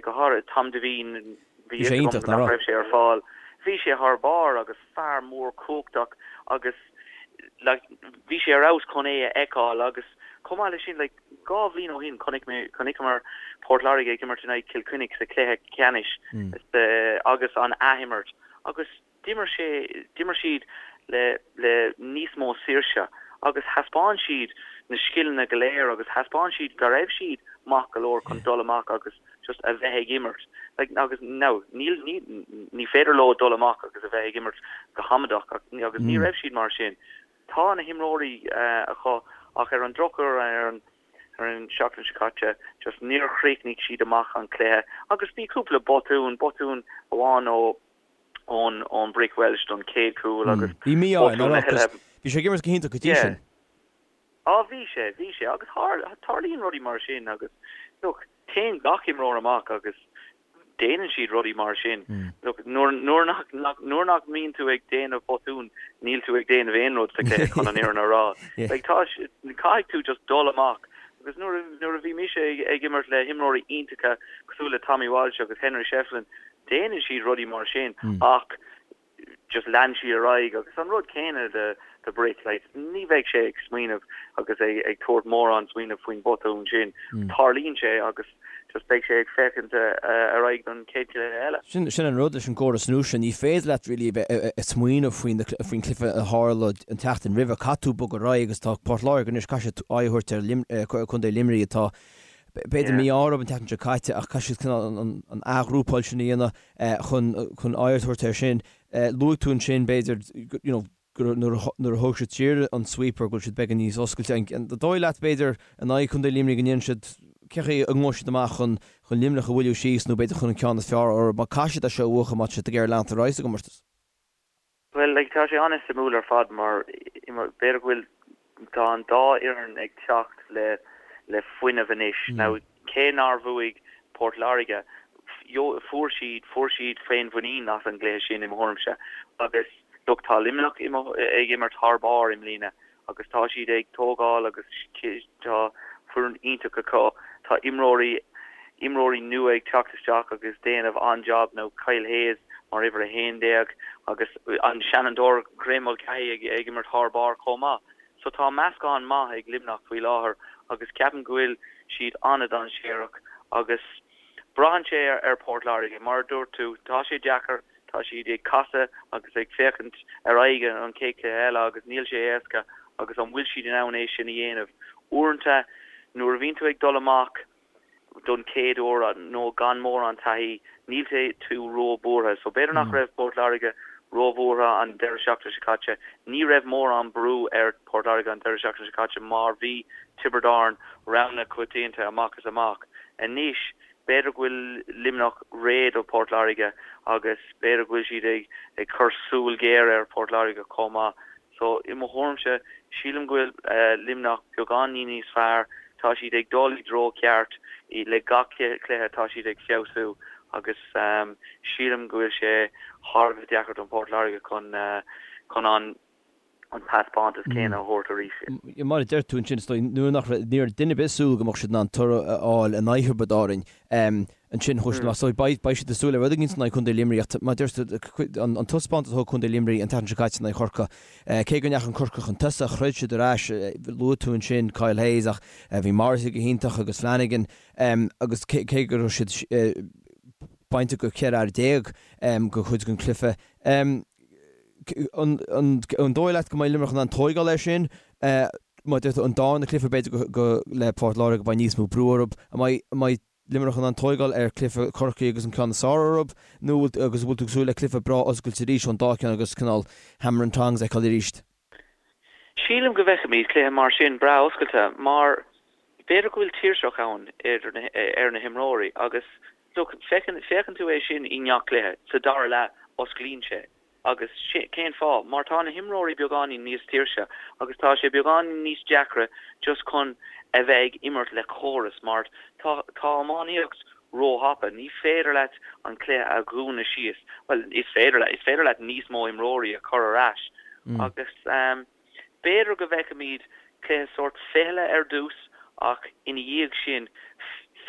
go háirithe Tom Devine, bhí fhios agam nach raibh sé ar fáil, bhí sé thar barr agus fear mór cumhachtach agus, like, bhí sé ar fheabhas chun é a fheiceáil agus chomh maith leis sin, like, dhá bhliain ó shin chonaic mé, chonaiceamar Port Láirge ag imirt in aghaidh Cill Chainnigh sa chluiche ceannais agus an athimirt agus, D'imir sé, d'imir siad le, le níos mó saoirse agus thaispeáin siad na scileanna go léir agus thaispeáin siad go raibh siad maith go leor chun dul amach agus just a bheith ag imirt. Like, agus now, níl, ní, ní féidir leo dul amach agus a bheith ag imirt go hamadach agus ní raibh siad mar sin. Tá na himreoirí acu ach ar an drochuair ar an, ar an seachtain seo caite just níor chríochnaigh siad amach an cluiche agus bhí cúpla botún, botún amháin ó, ón ón Brick Walsh don chéad chúl agus
Bhí mí-ádh air, nach raibh? 'Cause bhí sé ag imirt go hiontach go dtí sin.
Á bhí sé, bhí sé agus tarlaíonn rudaí mar sin agus look, téann gach imreoir amach agus déanann siad rudaí mar sin. Look, nuair nuair nach nach nuair nach mbíonn tú ag déanamh botún, níl tú ag déanamh aon rud sa chluiche chun an fhírinne a rá. Like tá caithfidh tú just dul amach agus nuair nuair a bhí mise ag ag imirt le himreoirí iontacha cosúil le Tommy Walsh agus Henry Shefflin, Déanann siad rudaí mar sin ach just lean siad ar aghaidh agus an rud céanna do do Brick, like ní bheidh sé ag smaoineamh agus ag ag tabhairt mórán smaoineamh faoin botún sin. Tarlaíonn sé agus just beidh sé ag féachaint ar aghaidh don chéad chluiche eile.
Sin sin an rud leis an gcóras nua seo, ní féidir leat really a bheith ag smaoineamh faoin faoin chluiche a tharla an tseachtain roimhe, caithfidh tú bogadh ar aghaidh agus tá Port Láirge anois, caithfidh siad aghaidh a thabhairt ar Lim Contae Luimnigh atá B'fhéidir mí-ádh orthu an tseachtain seo caite ach caithfidh siad cineál an athghrúpáil sin a dhéanamh chun chun aghaidh a thabhairt air sin. Luaigh tú ansin b'fhéidir you know nuair a thóg siad siar an sweeper go bhfuil siad beagán níos oscailte. An dóigh leat b'fhéidir in aghaidh Chontae Luimnigh go ndéanann siad cé chaoi a ngabhfaidh siad amach chun chun Luimneach a bhualadh síos nó b'fhéidir chun an ceann is fearr orthu mar caithfidh siad é seo a bhuachan má tá siad ag iarraidh leanacht ar aghaidh sa gcomórtas.
Bhuel, like, tá sé an-suimiúil ar fad mar b'fhéidir go bhfuil, tá an dá fhoireann ag teacht le, le fuinneamh anois. Now, cé nár bhuaigh Port Láirge, fuair siad, fuair siad féinmhuinín as an gcluiche sin i mo thuairimse. Agus, look, tá Luimneach ag imirt thar barr i mbliana agus tá siad ag tógáil agus tá foireann iontach acu. Tá imreoirí imreoirí nua ag teacht isteach agus déanamh an-jab now Kyle Hayes mar uimhir 11 agus an seanfhondúir Graeme Mulcahy ag ag imirt thar barr chomh maith. So tá meascán maith ag Luimneach faoi láthair agus ceapaim go bhfuil siad an-dainséarach agus braitheann sé ar Port Láirge. Mar a dúirt tú, tá sé deacair Tá siad ag casadh agus ag féachaint ar aghaidh an chéad chluiche eile agus níl sé éasca. Agus an bhfuil siad in ann é sin a dhéanamh? Uaireanta, nuair a bhíonn tú ag dul amach don chéad uair nó gan mórán taithí, níl tú ró-bhuartha. So b'fhéidir nach raibh Port Láirge ró-bhuartha an deireadh seachtaine seo caite. Ní raibh mórán brú ar Port Láirge an deireadh seachtaine seo caite mar bhí Tiobraid Árann rogha na coitianta amach is amach. Anois, b'fhéidir go bhfuil Luimneach réidh do Port Láirge agus b'fhéidir go bhfuil siad ag cur súil ghéar ar Port Láirge chomh maith. So, i mo thuairimse, sílim go bhfuil Luimneach beagáinín níos fearr, tá siad ag dul i dtreo ceart, le gach cluiche tá siad ag feabhsú agus sílim go bhfuil sé thar a bheith deacair don Port Láirge chun chun an an taispeántas céanna a thabhairt arís.
Mar a deir tú ansin, is dóigh, nuair nach raibh, ní raibh duine ar bith ag súil go mbeadh siad in ann toradh a fháil in aghaidh Thiobraid Árainn. Ansin chuaigh siad amach. So beidh siad ag súil le rud éigin in aghaidh Contae Luimnigh ach mar a deir tú, an taispeántas a thug Contae Luimnigh an tseachtain seo caite in aghaidh Chorcaí, cé go ndeachaigh Corcaigh chun tosaigh, throid siad ar ais, luaigh tú ansin Kyle Hayes ach bhí Morrissey go hiontach agus Flanagan agus cé go raibh siad bainte go 14 fhear go chuid den chluiche. An dóigh leat go mbeidh Luimneach in ann tóigeáil air sin? Mar a deir tú, an darna cluiche b'fhéidir go le Port Láirge beidh níos mó brú orthu. An mbeidh Luimneach in ann tóigeáil ar chluiche Chorcaí agus an ceann is fearr orthu nó agus an bhfuil tú ag súil le cluiche breá oscailte arís ón dá cheann agus cineál hammer and tongs a fheiceáil arís?
Sílim go bhfeicfimid cluiche mar sin breá oscailte mar b'fhéidir go bhfuil tuirseach ann ar na himreoirí agus look féachann tú é sin i ngach cluiche, sa dara leath osclaíonn sé. Agus cén fáth? Mar tá na himreoirí beagáinín níos tuirse agus tá sé beagáinín níos deacra just chun a bheith ag imirt le córas mar tá tá iománaíocht róthapa. Ní féidir leat an cluiche a dhúnadh síos. Bhuel, is féidir leat, is féidir leat níos mó imreoirí a chur ar ais agus b'fhéidir go bhfeicfimid cluiche sórt fichille ar dtús ach ina dhiaidh sin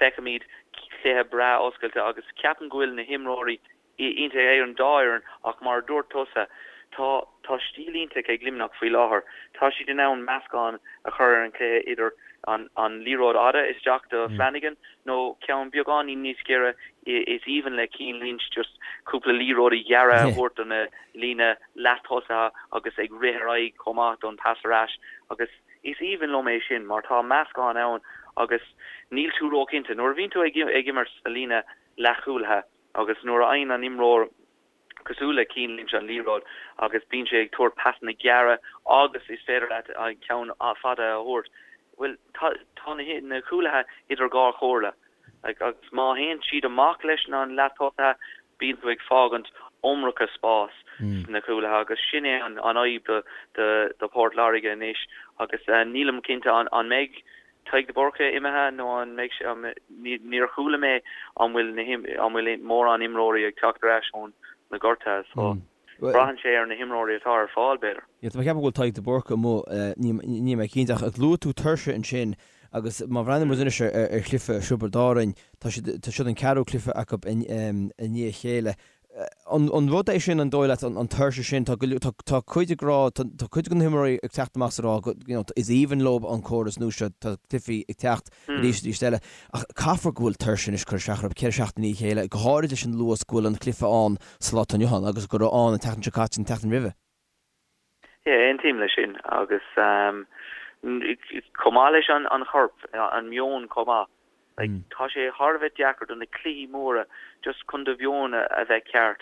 feicfimid cluiche breá oscailte agus ceapaim go bhfuil na himreoirí iontach ag an dá fhoireann ach mar a dúirt tusa, tá tá stíl iontach ag Luimneach faoi láthair. Tá siad in ann meascán a chur ar an chluiche idir an an liathróid fhada isteach do Flanagan nó ceann beagáinín níos giorra is aoibhinn le Cian Lynch just cúpla liathróidí gearra a thabhairt do na líne leath-tosaithe agus ag rith ar aghaidh chomh maith don pas ar ais agus is aoibhinn liom é sin mar tá meascán ann agus níl tú róchinnte. Nuair a bhíonn tú ag ag imirt sa líne leathchúlaithe, Agus nuair a fhaigheann an imreoir cosúil le Cian Lynch an liathróid agus bíonn sé ag tabhairt pasanna gearra agus is féidir leat an ceann fada a thabhairt, bhuel, tá tá na cúlaithe idir dhá chomhairle. Agus má théann siad amach leis na leath-tosaithe, bíonn tú ag fágaint iomarca spás sna cúlaithe agus sin é an fhadhb do do Port Láirge anois agus nílim cinnte an mbeidh Tadhg de Búrca imithe nó an mbeidh sé, níor chuala mé an bhfuil na an bhfuil mórán imreoirí ag teacht ar ais ón na gortuithe so braitheann sé ar na himreoirí atá ar fáil b'fhéidir.
Yeah, tá mé ag ceapadh go bhfuil Tadhg de Búrca amuigh, níl mé cinnte ach luaigh tú tuirse ansin agus má bhreathnaíonn muid anois ar chluiche Thiobraid Árainn, tá siad, tá siad an ceathrú cluiche acu i ndiaidh a chéile. An rud é sin, an dóigh leat, an tuirse sin, tá tá cuid ag rá, tá cuid de na himreoirí ag teacht amach is ag rá go, you know, is aoibhinn leo an córas nua seo, tá cluichí ag teacht arís arís eile, ach caithfear go bhfuil tuirse anois ag cur isteach orthu, 4 seachtain i ndiaidh a chéile, go háirid leis an luas go bhfuil an cluiche ann sa lá atá inniu ann agus go raibh ann an tseachtain seo caite, an tseachtain roimhe.
Yeah, aontaím leis sin agus chomh maith leis an chorp, an meon chomh maith. Like, tá sé thar a bheith deacair do na cluichí móra just chun do mheon a bheith ceart.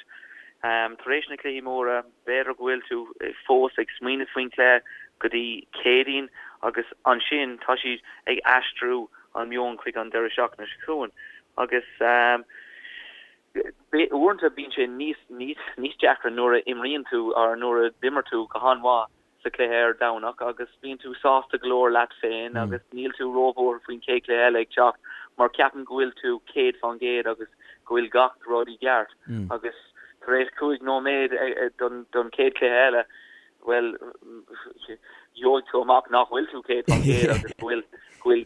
Tar éis na cluichí móra, b'fhéidir go bhfuil tú fós ag smaoineamh faoin chluiche go dtí Céadaoin agus ansin tá siad ag aistriú an meon chuig an deireadh seachtaine seo chugainn agus Uaireanta bíonn sé níos, níos, níos deacra nuair a imríonn tú or nuair a d'imir tú go han-mhaith sa chluiche ar Domhnach agus bíonn tú sásta go leor leat féin agus níl tú róbhuartha faoin chéad chluiche eile ag teacht mar ceapann go bhfuil tú 100% agus go bhfuil gach rud i gceart agus tar éis 5 nóiméad don, don chéad chluiche eile bhuel, gheobhaidh tú amach nach bhfuil tú 100% agus go bhfuil go bhfuil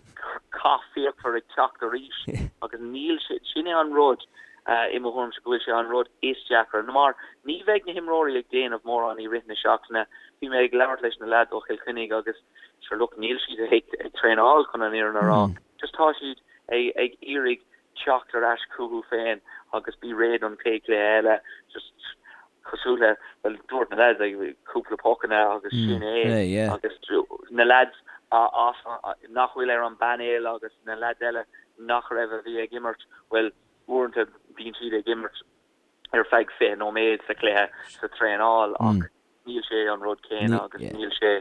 cath fíochmhar ag teacht arís agus níl sé, sin é an rud i mo thuairimse go bhfuil sé an rud is deacra mar ní bheidh na himreoirí ag déanamh mórán i rith na seachtaine. Bhí mé ag labhairt leis na leaids ó Chill Chainnigh agus sure look níl siad ag ag traenáil chun an fhírinne a rá. Just tá siad ag ag iarraidh teacht ar ais chucu féin agus bí réidh don chéad chluiche eile. Just. cosúil le, bhuel, dúirt na leaids, like, cúpla pocanna agus sin é agus na leaids as, nach bhfuil ar an bpainéal agus na leaids eile nach raibh a bhí ag imirt, bhuel, uaireanta bíonn siad ag imirt ar feadh 20 nóiméad sa chluiche sa traenáil ach níl sé an rud céanna agus níl sé,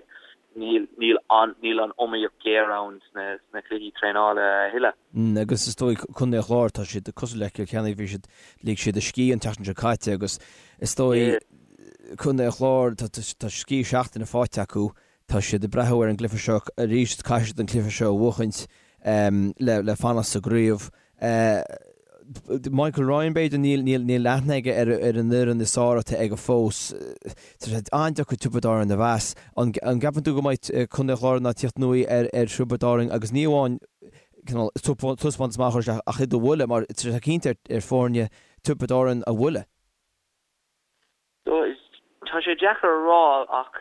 níl, níl an, níl an iomaíocht ghéar ann sna, sna cluichí traenála a thuilleadh.
Agus is dóigh Contae an Chláir, tá siad cosúil le Cill Chainnigh, bhí siad, lig siad a scíth an tseachtain seo caite agus is dóigh Contae an Chláir, tá, tá scíth seachtaine faighte acu, tá siad ag breathnú ar an gcluiche seo arís, caithfidh siad an cluiche seo a bhuachaint le, le fanacht sa gcraobh. Michael Ryan, b'fhéidir, níl, níl, níl aithne aige ar, ar an fhoireann is fearr atá aige fós. Tá sé an-deacair Tiobraid Árann a mheas. An, an gceapann tú go mbeidh Contae an Chláir in ann tíocht anuaidh ar, ar Thiobraid Árann agus ní amháin cineál taispeántas maith a chur isteach ach iad a bhualadh mar tá sé cinnte ar, ar foirne Tiobraid Árann a bhualadh.
Tá sé deacair a rá ach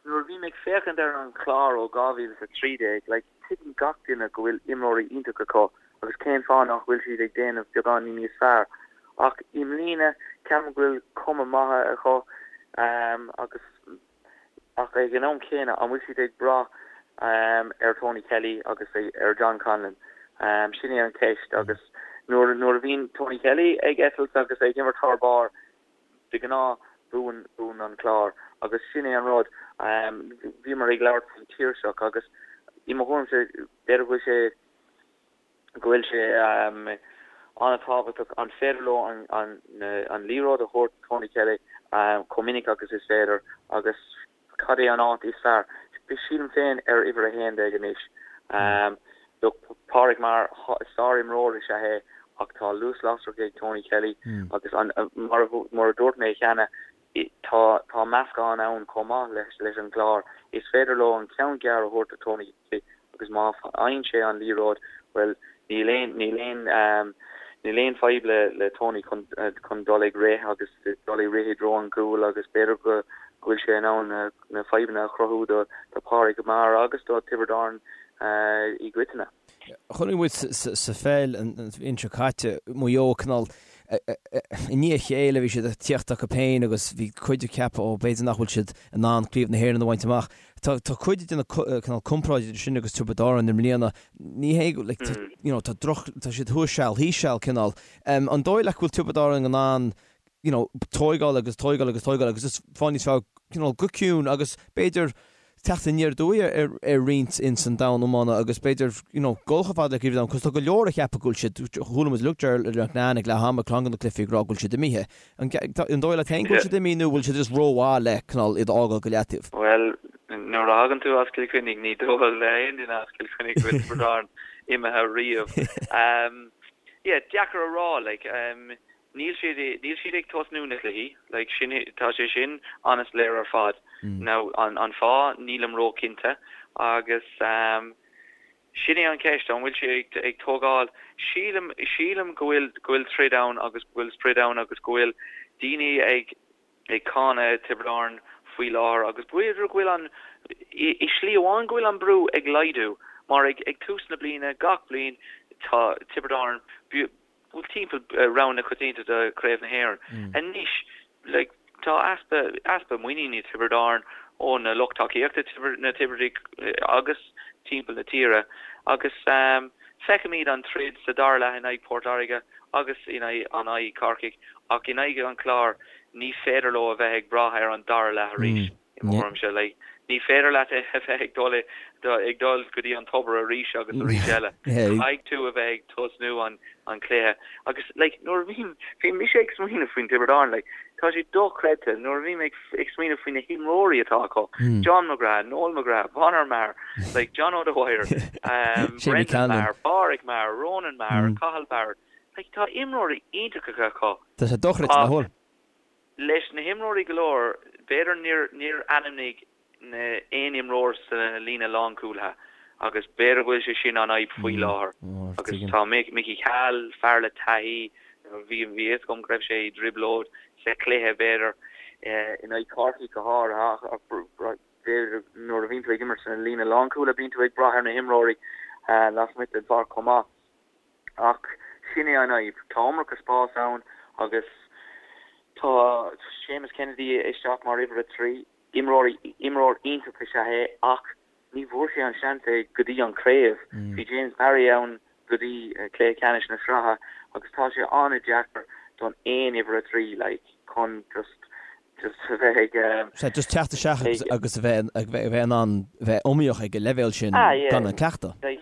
nuair a bhím ag féachaint ar an Chlár ó 2013, like, tuigeann gach duine go bhfuil imreoirí iontacha acu agus cén fáth nach bhfuil siad ag déanamh beagáinín níos fearr. Ach i mbliana, ceapaim go bhfuil cuma maith acu agus ach ag an am céanna, an bhfuil siad ag brath ar Tony Kelly agus ar John Conlon? Sin é an cheist agus nuair nuair a bhíonn Tony Kelly ag eitilt agus ag imirt thar barr, De ghnáth, buann, buann an Clár agus sin é an rud. Bhíomar ag labhairt faoin taoiseach agus i mo thuairimse, b'fhéidir go bhfuil sé, go bhfuil sé an-tábhachtach an féidir leo an, an, an liathróid a thabhairt do Tony Kelly chomh minic agus is féidir agus Cad é an áit is fearr? Sílim féin ar uimhir 11 anois. Look, Pádraig Maher, sár-imreoir is ea é ach tá luas lasrach ag Tony Kelly agus mar a dúirt mé cheana, tá tá meascán ann chomh maith leis leis an gClár. Is féidir leo an ceann gearr a thabhairt do Tony Kelly agus má fhaigheann sé an liathróid, bhuel, níl aon, níl aon, níl aon fadhb le, le Tony chun, chun dul ag rith agus dul ag rith i dtreo an gcúil agus b'fhéidir go, go bhfuil sé in ann na, na fadhbanna a chruthú do, do Pádraig Maher agus do Tiobraid Árann i gcoitinne.
Chonaic muid sa pheil an bhliain seo caite, Maigh Eo cineál i ndiaidh a chéile bhí siad ag tíocht acu féin agus bhí cuid ag ceapadh ó b'fhéidir nach bhfuil siad in ann Craobh na hÉireann a bhaint amach. Tá tá cuid de na cineál comparáid idir sin agus Tiobraid Árann i mbliana. Ní hé go like tá you know tá droch tá siad thuas seal thíos seal cineál. An dóigh leat go bhfuil Tiobraid Árann in ann you know tóigeáil agus tóigeáil agus tóigeáil agus just fáil níos fearr cineál go ciúin agus b'fhéidir teacht aniar aduaidh ar ar roinnt ins an domhan iomána agus b'fhéidir you know dul chomh fada le Craobh an Domhain cos tá go leor a cheapadh go bhfuil siad chuala muid lucht Ger McNan ag leath ama ceann de na cluichí ag rá go bhfuil siad imithe. An dóigh leat féin go bhfuil siad imithe nó bhfuil siad just rómhaith le cineál iad a fhágáil go leataobh?
Bhuel, nuair a thagann tú as Cill Chainnigh, ní dóigh le haon duine as Cill Chainnigh go bhfuil Tiobraid Árann imithe riamh. Yeah, deacair a rá, like, níl siad, níl siad ag tosnú na cluichí, like, sin, tá sé sin an-soiléir ar fad. Now, an, an fáth, nílim ró-chinnte agus, Sin é an cheist, an bhfuil sé ag tógáil? Sílim, sílim go bhfuil, go bhfuil troid ann agus go bhfuil sprid ann agus go bhfuil daoine ag, ag cáineadh Tiobraid Árann faoi láthair agus b'fhéidir go bhfuil an, i, i slí amháin go bhfuil an brú ag laghdú mar ag, ag tús na bliana gach bliain tá Tiobraid Árann, bhuel timpeall rogha na coitianta do Chraobh na hÉireann. Anois, like, tá easpa, easpa muiníne i Tiobraid Árann ó na lucht tacaíochta, na Tiobradaigh agus timpeall na tíre agus feicimid an troid sa dara leath in aghaidh Port Láirge agus in aghaidh an aghaidh Corcaigh ach in aghaidh an Chláir ní féidir leo a bheith ag brath ar an dara leath arís. I mo thuairimse, like, ní féidir leat a bheith ag dul ag dul go dtí an tobar arís agus arís eile. Caithfidh tú a bheith ag tosnú an an cluiche. Agus, like, nuair a bhím, bhí mise ag smaoineamh faoin Tiobraid Árann, like, tá sé dochreidte nuair a bhím ag ag smaoineamh faoi na himreoirí atá acu, John McGrath, Noel McGrath, Conor Maher, like, John O'Dwyer, um, Brendan Maher, Pádraig Maher, Ronan Maher, Cathal Barrett. Like, tá imreoirí iontacha acu.
Tá sé dochreidte, nach bhfuil?
Leis na himreoirí go leor, b'fhéidir níor níor ainmnigh na aon imreoir sa líne lánchúlaithe agus b'fhéidir go bhfuil sé sin an fhadhb faoi láthair. Agus tá Mickey Cahill, fear le taithí, bhí bhí fhios agam go raibh sé i dtrioblóid sa chluiche b'fhéidir in aghaidh Chorcaí go háirithe ach b'fhéidir nuair a bhíonn tú ag imirt sa líne lánchúlaithe bíonn tú ag brath ar na himreoirí lasmuigh den pháirc chomh maith. Ach sin é an fhadhb, tá iomarca spás ann agus. Tá Séamus Kennedy isteach mar uimhir 3. Imreoir imreoir iontach is ea é ach ní bhfuair sé an seans é go dtí an craobh. Bhí James Barry ann go dtí cluiche ceannais na sraithe agus tá sé an-deacair don aon uimhir 3 like chun just just a bheith ag
Sea, just teacht isteach agus agus a bheith a bheith in ann bheith iomaíoch ag an leibhéal sin
Ah yeah.
gan an cleachtadh.
Like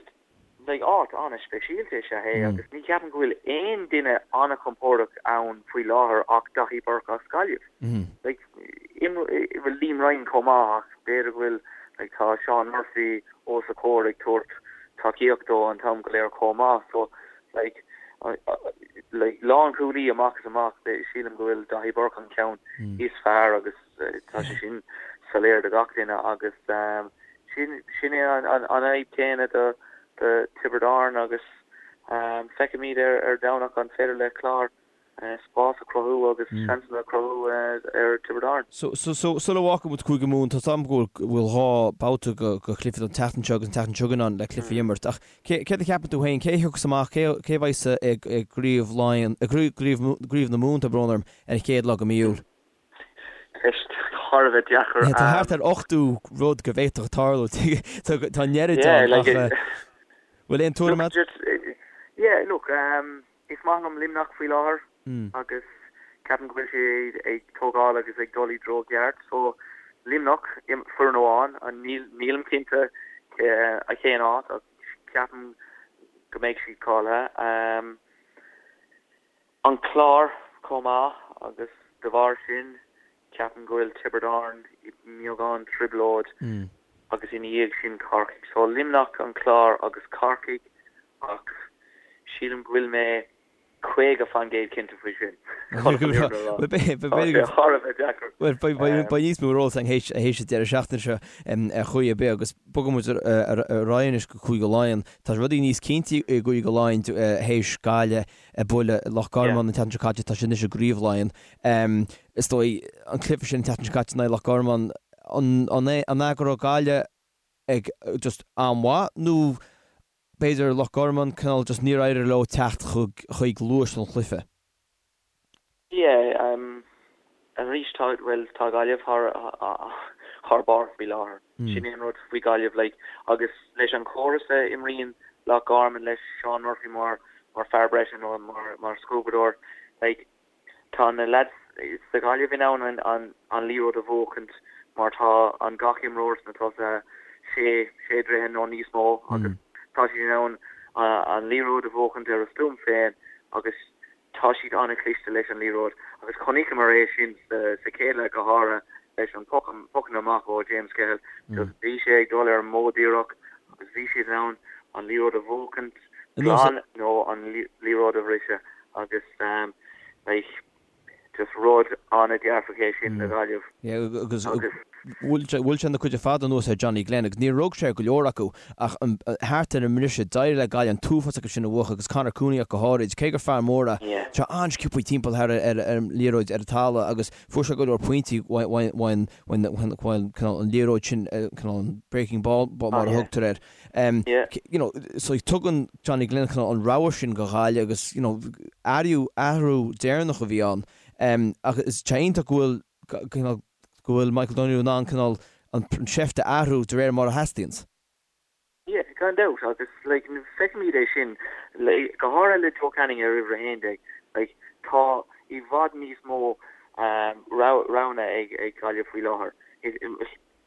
Like áit an-speisialta is ea é agus ní cheapaim go bhfuil aon duine an-chompordach ann faoi láthair ach Daithí Burke as Gaillimh. Like bhuel Liam Ryan chomh maith ach b'fhéidir go bhfuil like tá Seán Murphy os a chomhair ag tabhairt tacaíocht dó an t-am go léir chomh maith so like like lánchúlaí amach is amach sílim go bhfuil Daithí Burke an ceann is fearr agus Tá sé sin soiléir do gach duine agus sin é an fhadhb chéanna do Tiobraid Árann agus feicfimid ar Domhnach an féidir le Clár spás a chruthú agus seansanna a chruthú ar Tiobraid Árann.
So, sula bhfágfaidh muid Cúige Mumhan, tá 's agam go bhfuil 2 babhta de chluichí an tseachtain seo agus an tseachtain seo chugainn ann le cluichí a imirt ach céard a cheapann tú féin, cé a thiocfas amach, cé a bheidh i gCraobh Laighean, i gCraobh na Mumhan, tá brón orm, ar an chéad lá de mhí Iúil?
Ceist thar a bheith deacair.
Tá thart ar 80 rud go bhféadfadh tarlú. Tá an oiread ann ach bhfuil aon tuairim agat?
Yeah, look, is maith liom Luimneach faoi láthair agus ceapaim go bhfuil siad ag tógáil agus ag dul i dtreo ceart. So, Luimneach, foireann amháin, nílim cinnte cén áit ach ceapaim go mbeidh siad cáilithe. An Clár chomh maith agus de bharr sin ceapaim go bhfuil Tiobraid Árann i mbeagán trioblóid agus ina dhiaidh sin Corcaigh. So Luimneach, An Clár agus Corcaigh ach sílim go bhfuil mé 50% cinnte faoi sin. Chun an fhírinne a rá. Tá sé thar a bheith deacair.
Bhuel beidh níos mó ar eolas againn théis an deireadh seachtaine seo ar chaoi ar bith agus bogfaidh muid ar aghaidh anois go Cúige Laighean. Tá rudaí níos cinnte i gCúige Laighean théis Gaillimh ag bualadh Loch Garman an tseachtain seo caite, tá siad anois i gCraobh Laighean. Is dóigh, an cluiche sin an tseachtain seo caite in aghaidh Loch Garman, an é go raibh Gaillimh ag just an-mhaith nó b'fhéidir Loch Garman cineál just níor éirigh leo teacht chuig luas an chluiche?
Yeah, arís tá, bhuel, tá Gaillimh thar, thar barr faoi láthair. Sin é an rud faoi Gaillimh, like, agus leis an chóras a imríonn Loch Garman leis Seán Murphy mar, mar fear breise nó mar, mar scuabadóir, like, tá na lads sa Ghaillimh in ann an, an, an liathróid a bhuachaint mar tá an gach imreoir sna tosaithe sé, sé dtroithe nó níos mó agus tá siad in ann an liathróid a bhuachaint ar a stuaim féin agus Tá siad an-chliste leis an liathróid agus chonaiceamar é sin sa chéad leath go háirithe leis an pocanna amach ó James Cahill. Just bhí sé ag dul ar an modh díreach agus bhí siad in ann an liathróid a bhuachaint glan nó an liathróid a bhriseadh agus like just rud an-dearfach é sin le Gaillimh.
Yeah agus bhuail sé an chuid ar fad anuas ar Johnny Glenn agus níor rug sé ar go leor acu ach thart ar an mbriseadh, d'éirigh le Gaillimh an t-uafás acu sin a bhuachan agus Conor Cooney ach go háirid, cé gur fear mór é, tá sé an-sciobtha timpeall thar ar an liathróid ar an talamh agus fuair sé go leor pointí uaidh an liathróid sin, cineál an breaking ball mar a thugtar air. You know, so tugann Johnny Glenn cineál an rogha sin go Ghaillimh agus you know, athrú athrú deireanach a bhí ann. Ach is tá iontach go bhfuil cineál go bhfuil Michael Donoghue in ann cineál an seift a athrú de réir mar a theastaíonns.
Yeah, gan dabht, agus like feicimid é sin like go háirithe le Joe Canning ar uimhir 11, like tá i bhfad níos mó roghanna ag ag Gaillimh faoi láthair.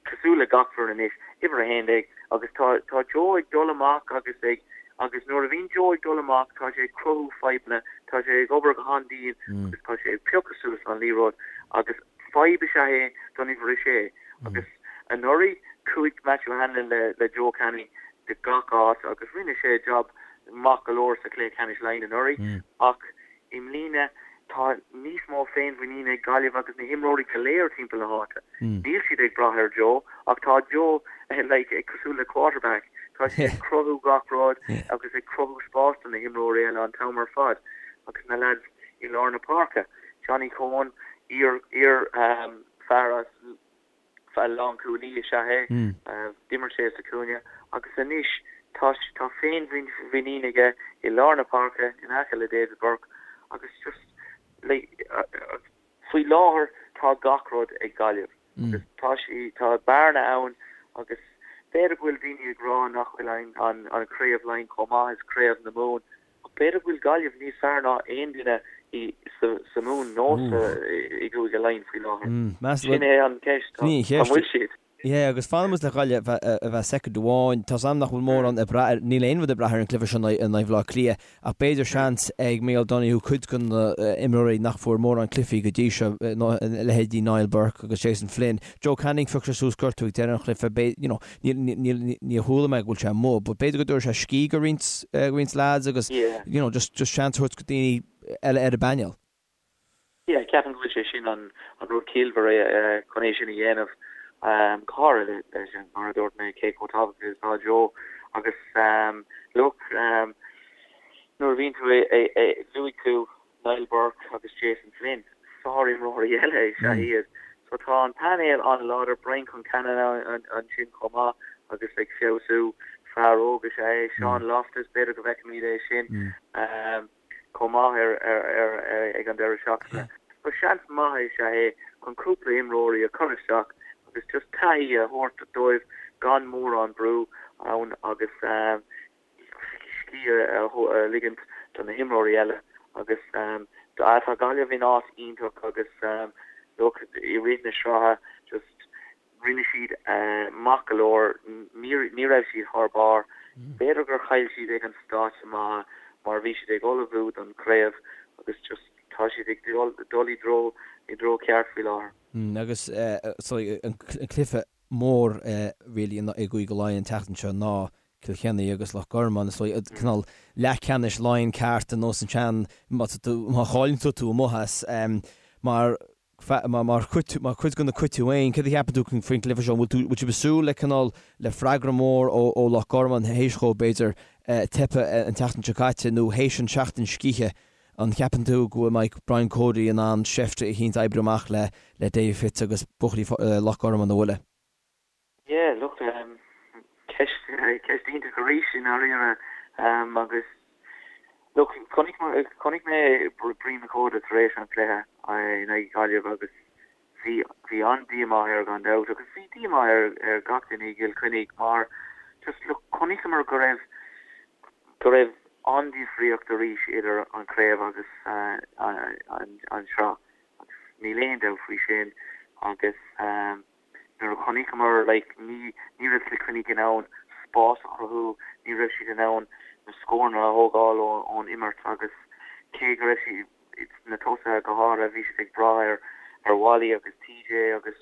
Cosúil le gach foireann anois, uimhir 11, agus tá tá Joe ag dul amach agus ag agus nuair a bhíonn Joe ag dul amach tá sé ag cruthú fadhbanna, tá sé ag obair go han-dian agus tá sé ag piocadh suas an liathróid agus fadhb is ea é don uimhir 6 agus anuraidh chuaigh Matthew Hanlon le le Joe Canning go gach áit agus rinne sé job maith go leor sa chluiche ceannais Laighean anuraidh ach I mbliana, tá níos mó féinmhuiníne ag Gaillimh agus na himreoirí go léir timpeall na háite. Níl siad ag brath ar Joe, ach tá Joe like cosúil le quarterback, tá sé ag cruthú gach rud agus ag cruthú spás do na himreoirí eile an t-am ar fad agus na lads i lár na páirce. Johnny Coen, iar iar fear as Lánchúlaí is ea é. D'imir sé sa chúinne agus anois tá tá féinmhuinín aige i lár na páirce in aice le David Burke agus just like. Faoi láthair tá gach rud ag Gaillimh agus tá sí, tá bearna ann agus b'fhéidir go bhfuil daoine ag rá nach bhfuil an an Craobh Laighean chomh maith is Craobh na Mumhan ach b'fhéidir go bhfuil Gaillimh níos fearr ná aon duine i sa sa Mumhain nó sa i gCúige Laighean faoi láthair. Sin é an cheist, an bhfuil siad?
Yeah, agus fanfaidh muid le Gaillimh ar feadh soicind amháin. Tá's a'm nach bhfuil mórán ag brath ar, níl aon rud ag brath ar an gcluiche seo in aghaidh Bhaile Átha Cliath, ach b'fhéidir seans ag Micheál Donoghue cuid de na imreoirí nach bhfuair mórán cluichí go dtí seo, leithéidí Niall Burke agus Jason Flynn. Joe Canning, phioc sé suas gortú ag deireadh an chluiche, you know, níor chuala mé go bhfuil sé amuigh, but b'fhéidir go dtabharfaidh sé scíth go roinnt, roinnt lads agus, you know, just, just seans a thabhairt go daoine eile ar an bpainéal.
Yeah, ceapaim go bhfuil sé sin an rud ciallmhar é chun é sin a dhéanamh, go háirithe leis an, mar a dúirt mé, cé chomh tábhachtach is atá Joe agus look, nuair a bhíonn tú luaigh tú Niall Burke agus Jason Flynn, sárimreoirí eile is ea iad. So tá an painéal an-láidir, Brian Concannon ansin chomh maith agus ag feabhsú, fear óg is ea é, Sean Loftus, b'fhéidir go bhfeicfimid é sin. chomh maith ar ag an deireadh seachtaine. So seans maith is ea é chun cúpla imreoirí a chur isteach agus just taithí a thabhairt dóibh gan mórán brú ann agus scíth a ligint do na himreoirí eile agus tá Gaillimh in áit iontach agus look i rith na sraithe just Rinne siad maith go leor, ní raibh siad thar barr. B'fhéidir gur chaill siad ag an stáitse maith mar bhí siad ag ullmhú don chraobh agus just tá siad ag dul i dtreo i dtreo ceart faoi láthair.
Agus so an cluiche mór really i gCúige Laighean an tseachtain seo ná Cill Chainnigh agus Loch Garman is dóigh cineál leathcheannais Laighean ceart ar nós an tsean má chailleann tú tú amuigh as mar Mar chuid de na cuid tú féin, céard a cheapann tú faoin gcluiche seo? An bhfuil tú, bhfuil sibh ag súil le cineál, le freagra mór ó Loch Garman théis dhóibh, b'fhéidir, teipeadh an tseachtain seo caite nó théis an seachtain scíthe? An cheapann tú go mbeidh Brian Cody in ann seift eicínt a oibriú amach le Davy Fitz agus buachaillí Loch Garman a bhualadh?
Yeah, look, ceist, ceist iontach arís i ndáiríre agus look, chonaic, chonaic mé Brian McCoda tar éis an chluiche in aghaidh Gaillimh agus bhí, bhí an-díomá air gan dabht agus bhí díomá ar, ar gach duine i gCill Chainnigh mar just look, chonaiceamar go raibh, go raibh an-difríocht arís idir an chraobh agus an, an sraith agus níl aon dabht faoi sin agus. Nuair a chonaiceamar like ní ní raibh Cill Chainnigh in ann spás a chruthú, ní raibh siad in ann na scóranna a thógáil ón imirt agus cé go raibh siad, na tosaithe go háirithe, bhí siad ag brath ar ar Wally agus TJ agus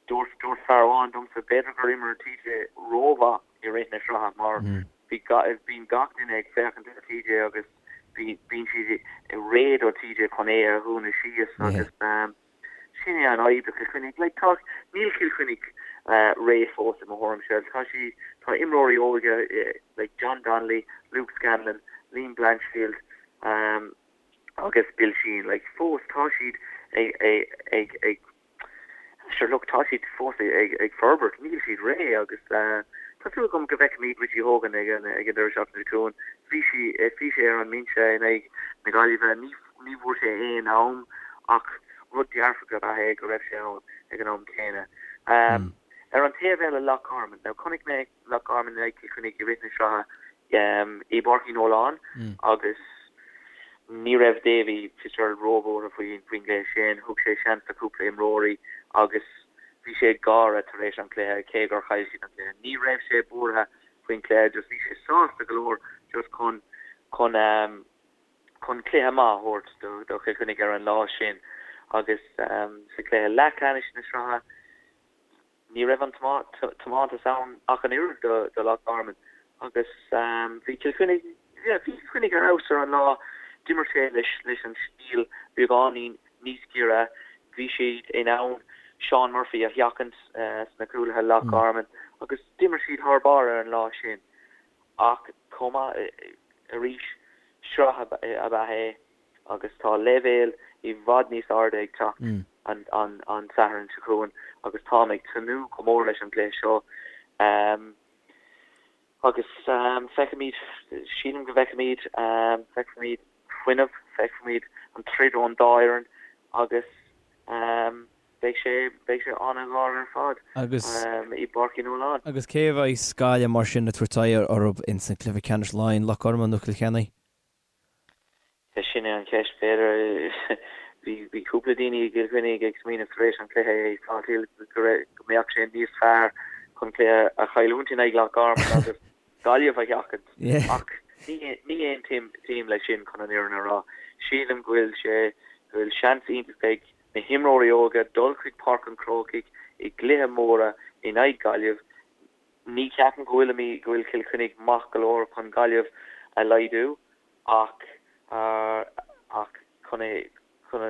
dúirt dúirt fear amháin domsa b'fhéidir gur imir TJ rómhaith i rith na sraithe mar bhí bíonn gach duine ag féachaint ar TJ agus bíonn siad réidh do TJ chun é a dhúnadh síos agus Sin é an fhadhb do Chill Chainnigh. Like, tá, níl Cill Chainnigh réidh fós i mo thuairimse. Tá sí, tá imreoirí óga like John Donnelly, Luke Scanlon, Liam Blanchfield agus Bill Sheehan, like fós tá siad ag, ag, ag, ag, sure look, tá siad fós ag, ag forbairt, níl siad réidh agus tá súil agam go bhfeicfimid Richie Hogan ag an, ag an deireadh seachtaine seo chugainn. Bhí sí, bhí sé ar an mbinse in aghaidh na Gaillimhe, ní, Ní bhfuair sé aon am ach rud dearfach ab ea é go raibh sé ann ag an am céanna. Ar an taobh eile, Loch Garman. Now chonaic mé Loch Garman in aghaidh Cill Chainnigh i rith na sraithe i bPáirc Uí Nualláin agus ní raibh Davy Fitzgerald róbhuartha faoin gcluiche sin. Thug sé seans do chúpla imreoirí agus bhí sé ag gáire tar éis an chluiche cé gur chaill siad an cluiche. Ní raibh sé buartha faoin chluiche, just bhí sé sásta go leor just chun chun chun cluiche maith a thabhairt do Chill Chainnigh ar an lá sin agus sa chluiche leathcheannais na sraithe ní raibh an tiomantas ann ach an oiread do Loch Garman agus bhí Cill Chainnigh yeah bhí Cill Chainnigh ar fheabhas ar an lá. D'imir sé leis leis an stíl beagáinín níos giorra. Bhí siad in ann Seán Murphy a sheachaint sna cúlaithe Loch Garman agus d'imir siad thar barr ar an lá sin. Ach chomh maith arís, sraith ab ea é agus tá leibhéal i bhfad níos airde ag teacht an Satharn seo chugainn agus táim ag tnúth go mór leis an gcluiche seo. Agus feicfimid, sílim go bhfeicfimid, feicfimid fuinneamh, feicfimid an troid ón dá fhoireann agus. Beidh sé, beidh sé an-ghar ar fad
Agus.
i bPáirc Uí Nualláin.
Agus cé a bheas Gaillimh mar sin ag tabhairt aghaidh orthu ins an cluiche ceannais Laighean, Loch Garman nó Cill Chainnigh?
Sin é an cheist, b'fhéidir. Bhí, bhí cúpla daoine i gCill Chainnigh ag smaoineamh tar éis an chluiche i Salthill go raibh, go mbeadh sé níos fearr chun cluiche a chailliúint in aghaidh Loch Garman agus Gaillimh a sheachaint. Ach ní, ní aontaím leis sin chun an fhírinne a rá. Sílim go bhfuil sé, go bhfuil seans iontach ag na himreoirí óga dul chuig Páirc an Chrócaigh i gcluiche móra in aghaidh Gaillimh. Ní cheapaim go bhfuil go bhfuil Cill Chainnigh maith go leor chun Gaillimh a laghdú ach ach chun é chun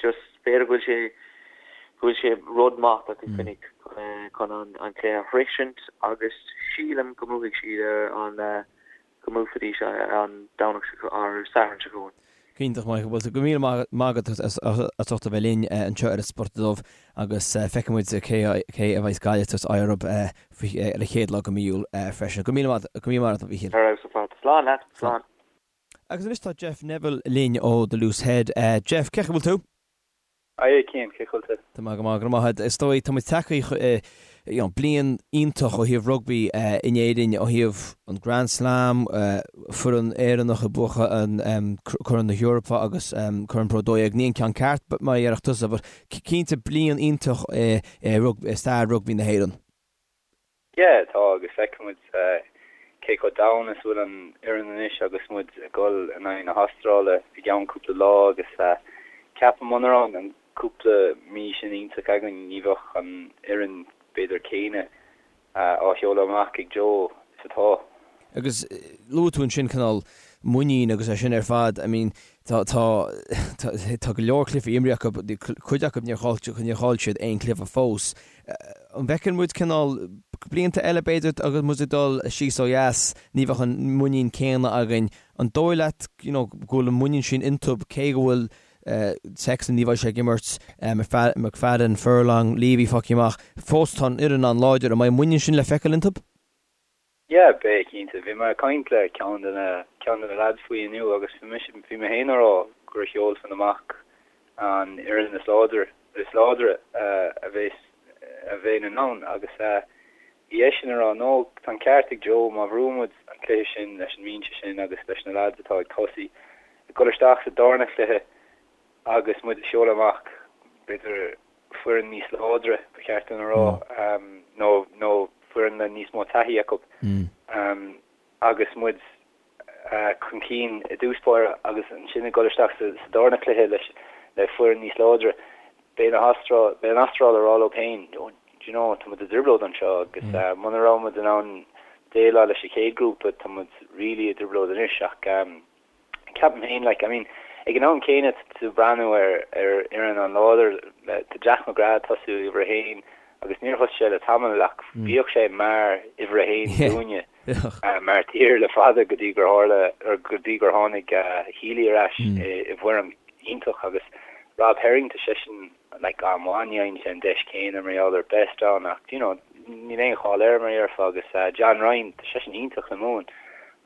just b'fhéidir go bhfuil sé go bhfuil sé rud maith do Chill Chainnigh chun chun an an cluiche a shroichint agus sílim go mbuafaidh siad ar an go mbuafaidís an Domhnach seo, ar Satharn seo chugainn.
Iontach Michael, bhuel go míle maith agat as ucht a bheith linn anseo ar an Spota Dubh agus feicfidh muid cé cé a bheas Gaillimh ag tabhairt aghaidh orthu ar an chéad lá de mhí Iúil freisin. Go míle maith go míle maith agat a Mhíchíl.
Ar fheabhas ar fad. Slán leat. Slán.
Agus anois tá Jeff Neville linn ó The Loose Head. Jeff, cén chaoi a bhfuil tú?
Haigh a Chian, cén chaoi a bhfuil tú?
Tá mé go maith, go raibh maith agat. Is dóigh, tá muid tagtha you know, bliain iontach ó thaobh rugbaí in Éirinn, ó thaobh an Grand Slam, foireann Éireannach ag buachan an Corn na hEorpa agus Corn Pro 12. Ní an ceann ceart mar a déarfadh tusa, but cinnte bliain iontach i stair rugbaí na hÉireann.
Yeah, tá, agus feicfidh muid cé chomh domhain is a bhfuil an fhoireann anois agus muid ag dul in aghaidh na hAstráile i gceann cúpla lá agus ceapaim muna raibh an cúpla mí sin iontach againn ní bheadh an fhoireann b'fhéidir céanna á sheoladh amach ag Joe is atá.
Agus luaigh tú ansin cineál muinín agus é sin ar fad, I mean tá tá tá go leor cluichí imrithe acu, cuid acu níor chaill níor chaill siad aon chluiche fós. An bhfeiceann muid cineál blianta eile b'fhéidir agus muid ag dul síos ó dheas ní bheadh an muinín céanna againn. An dóigh leat you know go bhfuil an muinín sin iontu cé go bhfuil Sexton ní bheidh sé ag imirt, McFadden, Furlong, Leavy fágtha amach, fós tá an fhoireann an-láidir, an mbeidh an muinín sin le feiceáil iontu?
Yeah, beidh, cinnte. Bhí mé ag caint le ceann de na, ceann de na lads faoi inniu agus bhí mise, bhí mé féin ag rá gur sheolfainn amach an fhoireann is láidre, is láidre a bheas, a bheinn in ann agus bhí eisean ag rá no, tá an ceart ag Joe, má bhuann muid an cluiche sin leis an mbinse sin agus leis na lads atá ag tosaí, ag dul isteach sa darna cluiche agus muid ag seoladh amach, b'fhéidir, foireann níos láidre, ba cheart dom a rá, nó nó foireann le níos mó taithí acu agus muid chun cinn i dtús báire agus ansin ag dul isteach sa darna cluiche leis le foireann níos láidre, beidh na hAstráil, beidh an Astráil ag rá leo féin, do you know, tá muid i dtrioblóid anseo agus muna raibh muid in ann déileáil leis an chéad ghrúpa, tá muid really i dtrioblóid anois ach Ceapaim féin, like, I mean, ag an am céanna tá tú ag breathnú ar ar fhoireann an-láidir, tá Jack McGrath ag tosú uimhir a haon agus níor thosaigh sé le tamall ach bhíodh sé mar uimhir a haon dúinne mar tír le fada go dtí gur tharla, or go dtí gur tháinig Healy ar ais i bhfoirm iontach agus Rob Herring tá seisean like an-mhaith, ní fhaigheann sé an deis céanna mar gheall ar Best ann ach you know níl aon chall air mar a déarfá agus John Ryan tá seisean iontach le Mumhain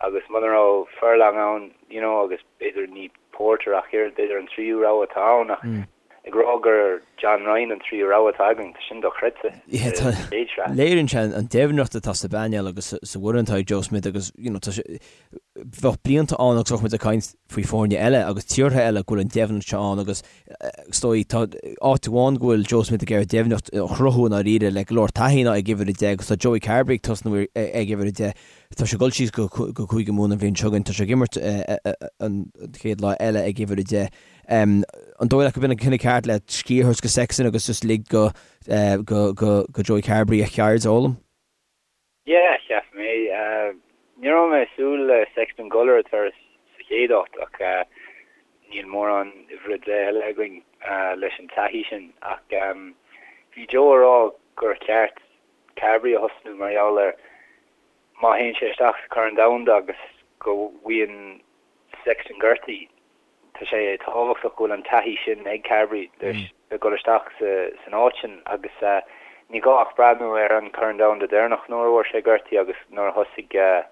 agus muna raibh Furlong ann you know agus b'fhéidir ní Porter ach oiread b'fhéidir an tríú rogha atá ann ach ag rá gur John Ryan an tríú rogha atá againn tá sin dochreidte
sa chéad sraith. Léiríonn sé an doimhneacht atá sa bpainéal agus sa bhfoireann atá ag Joe Schmidt agus you know tá sé bheadh blianta ann agus bheadh muid ag caint faoi foirne eile agus tíortha eile go bhfuil an doimhneacht seo ann agus is dóigh tá áit amháin go bhfuil Joe Schmidt ag iarraidh doimhneacht a chruthú i ndáiríre le go leor taithí ná ag uimhir 10 agus tá Joey Carbery ag tosnú ag uimhir 10. Tá sé ag dul síos go Cúige Mumhan an bhliain seo chugainn, tá sé ag imirt an chéad lá eile ag uimhir 10. An dóigh leat gurb in an cinneadh ceart le scíth a thabhairt go Sexton agus just lig go go Joey Carbery a cheird a fhoghlaim?
Yeah, cheap mé. Ní raibh mé ag súil le Sexton dul ar an turas sa chéad áit ach níl mórán uimhir a 10 eile againn leis an taithí sin. Ach bhí Joe ag rá gur cheart Carbery a thosnú mar gheall ar má théann sé isteach sa Chorn Domhanda agus go bhfaigheann Sexton gortaithe, Tá sé tábhachtach go bhfuil an taithí sin ag Carbery le dul isteach san áit sin agus ní gá ach breathnú ar an Chorn Domhanda deireanach nuair a fuair sé gortaithe agus nuair a thosaigh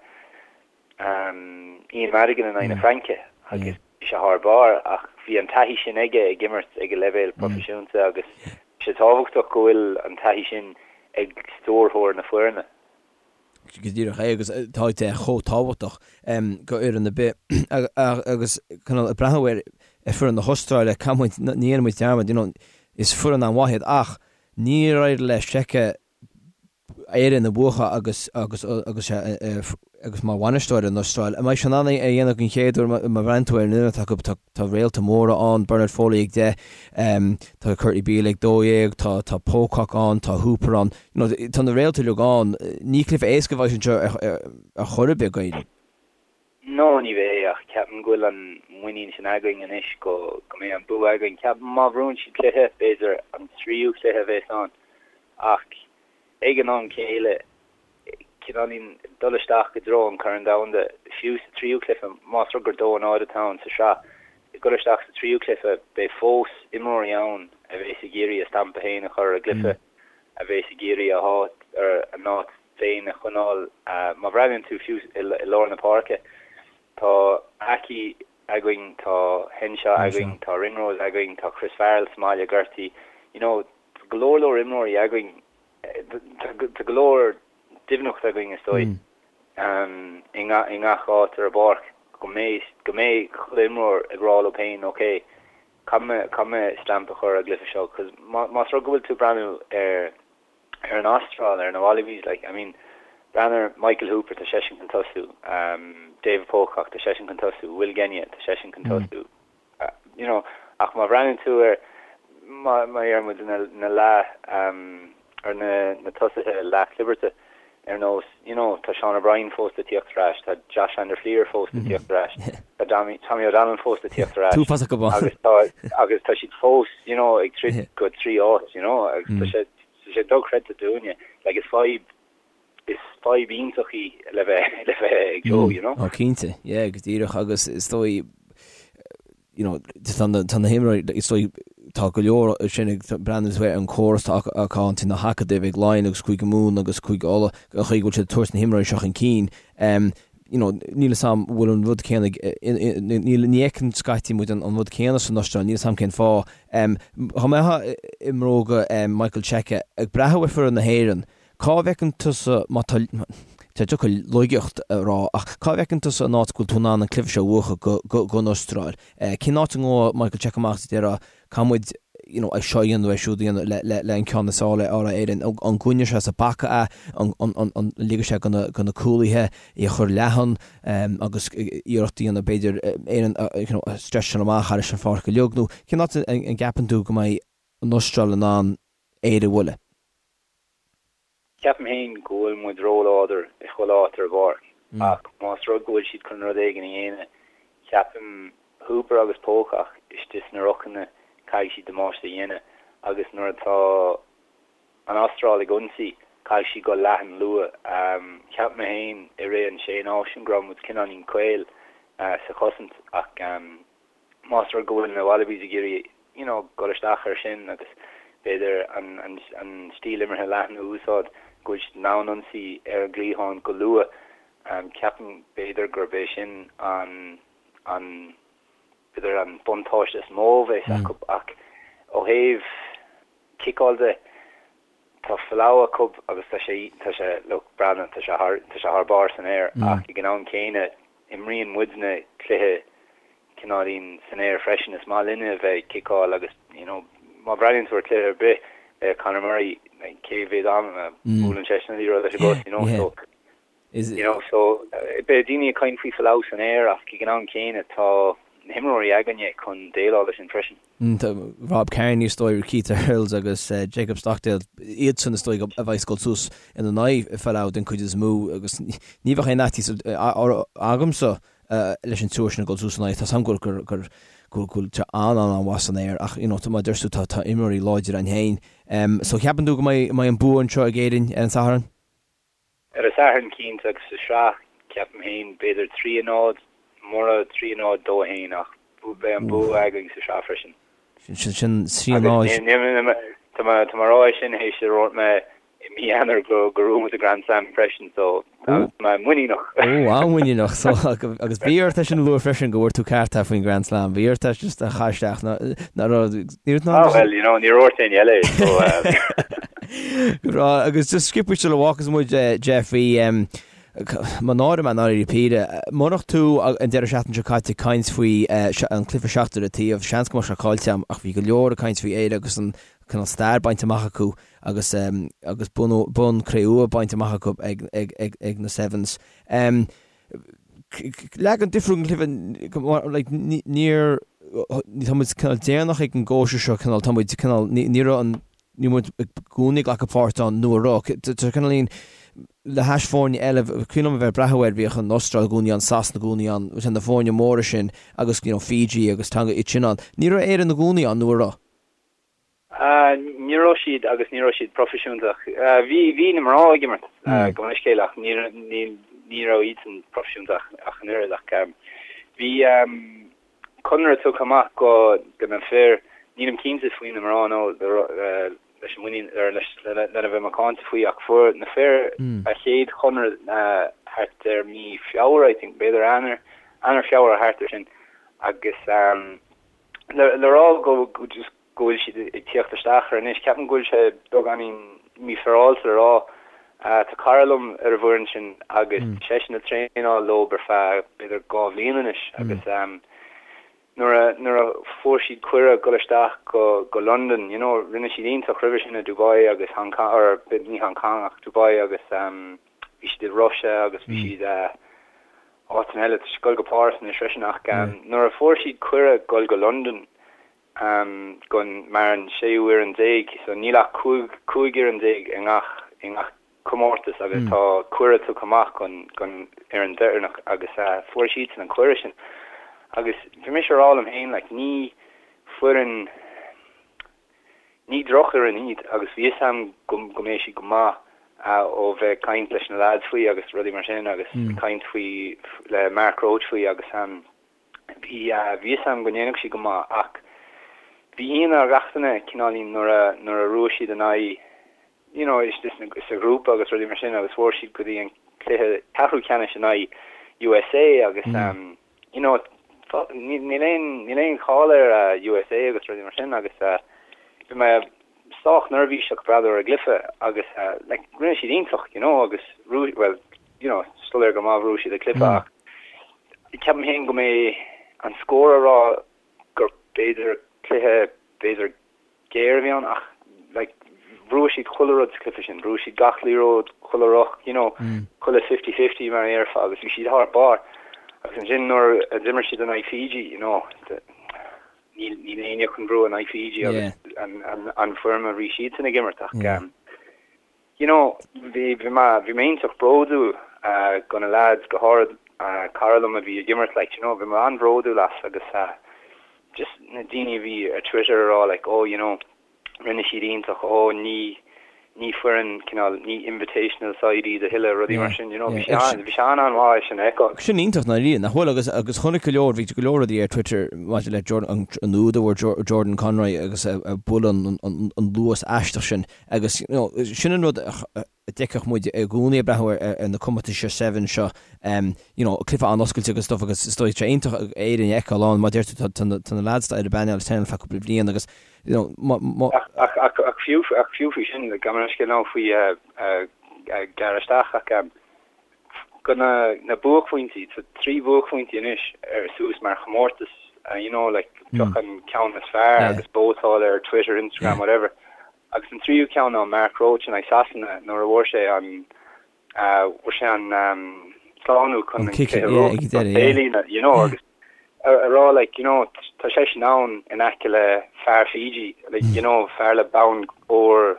Ian Madigan in aghaidh na Fraince agus bhí sé thar barr ach bhí. bhí an taithí sin aige ag imirt ag an leibhéal proifisiúnta agus tá sé tábhachtach go bhfuil an taithí sin ag stiúrthóir na foirne.
Go díreach é agus tá sé chomh tábhachtach go fhoireann ar bith agus cineál ag breathnú ar foireann na hAstráile, caithfidh muid, ní dhéanfaidh muid dearmad, you know, is foireann an-mhaith iad ach níor éirigh le Cheika Éirinn a bhuachan agus agus agus agus mar bhainisteoir ar an Astráil. An mbeidh sé in ann é a dhéanamh den chéad uair má bhreathnaíonn tú ar an fhoireann atá acu tá tá réalta móra ann, Bernard Foley ag 10, tá Kurtley Beale ag 12, tá tá Pocock ann, tá Hooper ann. You know, tá na réalta uilig ann. Ní cluiche éasca a bheidh anseo ar ar chor ar bith d'Éirinn.
No, ní bheidh, ach ceapaim go bhfuil an muinín sin againn anois go go mbeidh an bua againn. Ceapaim má bhuann siad cluiche, b'fhéidir an tríú cluiche a bheas ann, ach ag an am céile, cineáilín dul isteach i dtreo an Chorn Domhanda, fiú sa tríú cluiche, más rud gur 2-0 atá ann sa sraith, ag dul isteach sa tríú cluiche, beidh fós imreoirí ann a bheas ag iarraidh a stampa féin a chur ar an gcluiche, a bheas ag iarraidh a háit, a n-áit féin a choinneáil. Má bhreathnaíonn tú fiú i lár na páirce, tá Aki againn, tá Henshaw againn, tá Ringrose againn, tá Chris Farrell sa mbaile gortaithe, you know, Tá go leor leor imreoirí againn, tá go leor doimhneacht againn is dóigh i ngach áit ar an bpáirc go mbeidh go mbeidh chuile imreoir ag rá leo féin ok, caithfidh mé caithfidh mé stamp a chur ar an gcluiche seo cos más rud go bhfuil tú ag breathnú ar ar an Astráil, ar na Wallabies like I mean breathnaigh ar Michael Hooper tá seisean chun tosú, David Pocock tá seisean chun tosú, Will Genia tá seisean chun tosú. you know, ach má bhreathnaíonn tú ar, má deir muid na, na leath, ar na, na tosaithe leathchlibirt ar nós, you know, tá Sean O'Brien fós le tíocht ar ais, tá Josh van der Flier fós le tíocht ar ais, tá Tommy, Tommy O'Donnell fós le tíocht ar ais.
Tú fós acu
ann. Agus tá, agus tá siad fós, you know, ag troid go trí áit, you know, agus tá sé, tá sé dochreidte dúinne, like is fadhb, is fadhb iontach í le bheith le bheith ag Joe, you know.
Ó cinnte, yeah, go díreach agus is dóigh you know, tá na tá na himreoirí is dóigh tá go leor sin ag breathnú ar an córas atá acu ann na hacadaimh ag Laighin agus Cúige Mumhan agus Cúige Uladh an chaoi go bhfuil siad ag tabhairt na himreoirí seo chun cinn. Um, you know, níl 'fhios a'm bhfuil an rud céanna níl ní fheiceann scaití muid an rud céanna san Astráil, níl 'fhios a'm cén fáth. Um, dá mbeifeá i mbróga um, Michael Cheika ag breathnú ar foireann na hÉireann, Cá bhfeiceann tusa, má tá, tá deacair laigeacht a rá, ach cá bhfeiceann tusa an áit go bhfuil tú in ann an cluiche seo a bhuachan don Astráil? Cén áit a ngabhfaidh Michael Cheika amach is a déarfá, caithfidh muid you know, é seo a dhéanamh, é siúd a dhéanamh le, le, le an ceann is fearr a fháil ar Éirinn? An gcoinneoidh sé sa bpaca é? An, an, an, an ligfidh sé do na, do na cúlaithe é a chur leathan agus iarracht a dhéanamh b'fhéidir Éirinn a, you know, a stretcháil amach thar an pháirc uilig nó cén áit an gceapann tú go mbeidh an Astráil in ann Éire a bhualadh?
Ceapaim féin go bhfuil muid róláidir i chuile áit ar an bpáirc ach más rud go bhfuil siad chun rud éigin a dhéanamh, ceapaim Hooper agus Pocock istigh sna rucanna, caithfidh siad damáiste a dhéanamh agus nuair atá an Astráil ag ionsaí, caithfidh siad dul leathan luath. Cheap mé féin i rith an Sé Náisiún go raibh muid cineáilín caol sa chosaint ach más rud go bhfuil na Wallabies ag iarraidh you know dul isteach air sin agus b'fhéidir an an an stíl imeartha leathan a úsáid, go bhfuil siad in ann ionsaí ar an gcliathán go luath, ceapaim b'fhéidir gurb é sin an an b'fhéidir an buntáiste is mó a bheas acu ach ó thaobh ciceáil de, tá Folau acu agus tá sé tá sé look breathnaigh tá sé thar tá sé thar barr san aer ach ag an am céanna imríonn muidne cluiche cineáilín san aer freisin. Is maith linne a bheith ag ciceáil agus you know má bhreathnaíonn tú ar chluiche ar bith le Conor Murray like cé mhéad am a buaileann seisean an liathróid leis an gcos you know so You know, so beidh daoine ag caint faoi Folau san aer ach ag an am céanna tá na himreoirí againne chun déileáil leis sin freisin.
Tá Rob Kearney is dóigh, Keith Earls agus Jacob Stockdale, iadsan is dóigh a bheas ag dul suas ina n-aghaidh Folau den chuid is mó agus ní bheadh aon fhaitíos agamsa leis an triúr sin ag dul suas ina aghaidh. Tá 's agam gur gur gur go bhfuil sé an-an-an-mhaith san aer ach you know mar a deir tú tá tá imreoirí láidre ann féin. So ceapann tú go mbeidh an bua anseo ag Éirinn ar an Satharn?
Ar an Satharn cinnte agus sa sraith, ceapaim féin, b'fhéidir 3 0, mura 3 0 2 1 ach beidh an bua againn sa sraith freisin.
Sin 3 0.
Tá mé ag rá é sin théis a dúirt mé i mí Eanáir go gur bhuaigh muid an Grand Slam freisin so tá mé muiníneach.
Ó, an-mhuiníneach. So agus bhí ort é sin a lua freisin go bhfuair tú ceart faoin Grand Slam. Bhí ort é just a chur isteach ná raibh ní raibh
Ah well, you know, níor dhúirt éinne eile é so
Go breá. Agus just sciobtha sula bhfágfas muid Jeff bhí Mo náire mé náire píre. Murach tú an deireadh seachtaine seo caite ag caint faoi an cluiche seachtar an taobh, seans go mbeadh sé caillte agam ach bhí go leor ag caint faoi Éire agus an cineál stair bainte amach acu agus agus bonn cré-umha bainte amach acu ag ag ag ag na Sevens. Leagan difriúil den chluiche like níor tá muid cineál déanach ag an gcóisir seo cineál tá muid cineál ní raibh an ní muid i gcónaí ag glacadh páirt ann nó a raibh tá cineál le hais foirne eile cuimhin liom a bheith ag breathnú air bhíodh an Astráil i gcónaí ann Sasana i gcónaí ann na foirne móra sin agus you know Fiji agus Tonga iad sin ann ní raibh Éire i gcónaí ann nó a raibh?
Ní raibh siad agus ní raibh siad proifisiúnta. Bhí bhí na mná ag imirt gabh mo leithscéal ach ní ní ní raibh iadsan proifisiúnta ach an oiread ach bhí conradh tugtha amach go go na fir, nílim cinnte faoi na mná nó leis an muinín ar leis lena bheith macánta faoi ach fuair na fir a chéad chonradh thart ar mí Feabhra I think b'fhéidir Eanáir Eanáir Feabhra thart ar sin agus Le rá go just go bhfuil siad ag tíocht isteach air anois, ceapaim go bhfuil sé beagáinín mífhéaráilte le rá. Tá cara liom ar an bhfoireann sin agus tá seisean ag traenáil leo ar feadh b'fhéidir 2 bhliain anois agus nuair a nuair a fuair siad cuireadh dul isteach go go Londain, you know, rinne siad iontach roimhe sin i Dubai agus Hong Kong, or ní Hong Kong ach Dubai agus bhí siad i Russia agus bhí siad áiteanna eile, tá siad ag dul go Páras anois freisin ach nuair a fuair siad cuireadh dul go Londain gon mar an séú fhoireann déag, so níl ach 15 fhoireann i ngach i ngach comórtas agus tá cuireadh tugtha amach gon gon fhoireann deireanach agus fuair siadsan an cuireadh sin agus bhí mise a rá liom féin like ní foireann Ní drochfhoireann iad agus bhí fhios a'm go go mbeidh siad go maith ó bheith ag caint leis na lads faoi agus rudaí mar sin agus ag caint faoi le Mark Roche faoi agus bhí bhí fhios a'm go ndéanfadh siad go maith ach bhí ionadh ar gach duine cineáilín nuair a nuair a bhuaigh siad in aghaidh you know sa ghrúpa agus rudaí mar sin agus fuair siad go dtí an cluiche ceathrú ceannais in aghaidh USA agus you know níl aon níl aon cháil ar USA agus rudaí mar sin agus bhí mé sách neirbhíseach breathnú ar an gcluiche agus like rinne siad iontach you know agus well you know soiléir go maith bhuaigh siad an cluiche ach ceapaim féin go mbeidh an scór a rá gur b'fhéidir cluiche b'fhéidir géar a bhí ann ach like bhuaigh siad chuile rud sa chluiche sin, bhuaigh siad gach liathróid, chuile ruc, you know, chuile fifty-fifty mar a dhéarfá agus bhí siad thar barr. Agus ansin nuair a d'imir siad in aghaidh Fiji, you know, níl níl éinne chun bua in aghaidh Fiji agus an an an foirm a bhí siadsan ag imirt ach you know, bhí bhí mé bhí mé iontach bródúil go na lads, go háirid cara liom a bhí ag imirt like, you know, bhí mé an-bhródúil as agus just na daoine a bhí ar Twitter a rá like, oh, you know, rinne siad iontach, oh, ní ní foireann cineál, ní invitational side iad a thuilleadh, rudaí mar sin, you know, bhí sé an, bhí sé an-an-mhaith é sin a fheiceáil.
Sin iontach ndáiríre, nach bhfuil? Agus agus chonaic go leor, bhí go leor rudaí ar Twitter maidir le Jordan, an úd a bhfuair Jordan Conroy agus a buail an an luas aisteach sin. Agus, you know, sin an rud a d'fheicfeadh muid i gcónaí ag breathnú ar na comórtais seo, Sevens seo, you know, cluiche an-oscailte agus stuff agus is dóigh sé iontach Éirinn a fheiceáil ann, mar deir tú, tá na lads ar an bpainéal ag traenáil feadh cúpla bliain agus, you know, má, má.
Ach, ach, ach fiú, ach fiú faoi sin, gabh mo leithscéal now faoi gearradh isteach ach go na, na buaicphointí, tá 3 bhuaicphointí anois ar suas mar chomórtas, you know, like, pioc an ceann is fearr agus vótáil ar Twitter, Instagram, whatever. Agus an tríú ceann ná Mark Roche in aghaidh Sasana nuair a bhfuair sé an bhfuair sé an slánú chun an cluiche a bhuachan taobhlíne, you know, agus a rá like, you know, tá seisean ann in aice le fear Fiji, like, you know, fear le bonn óir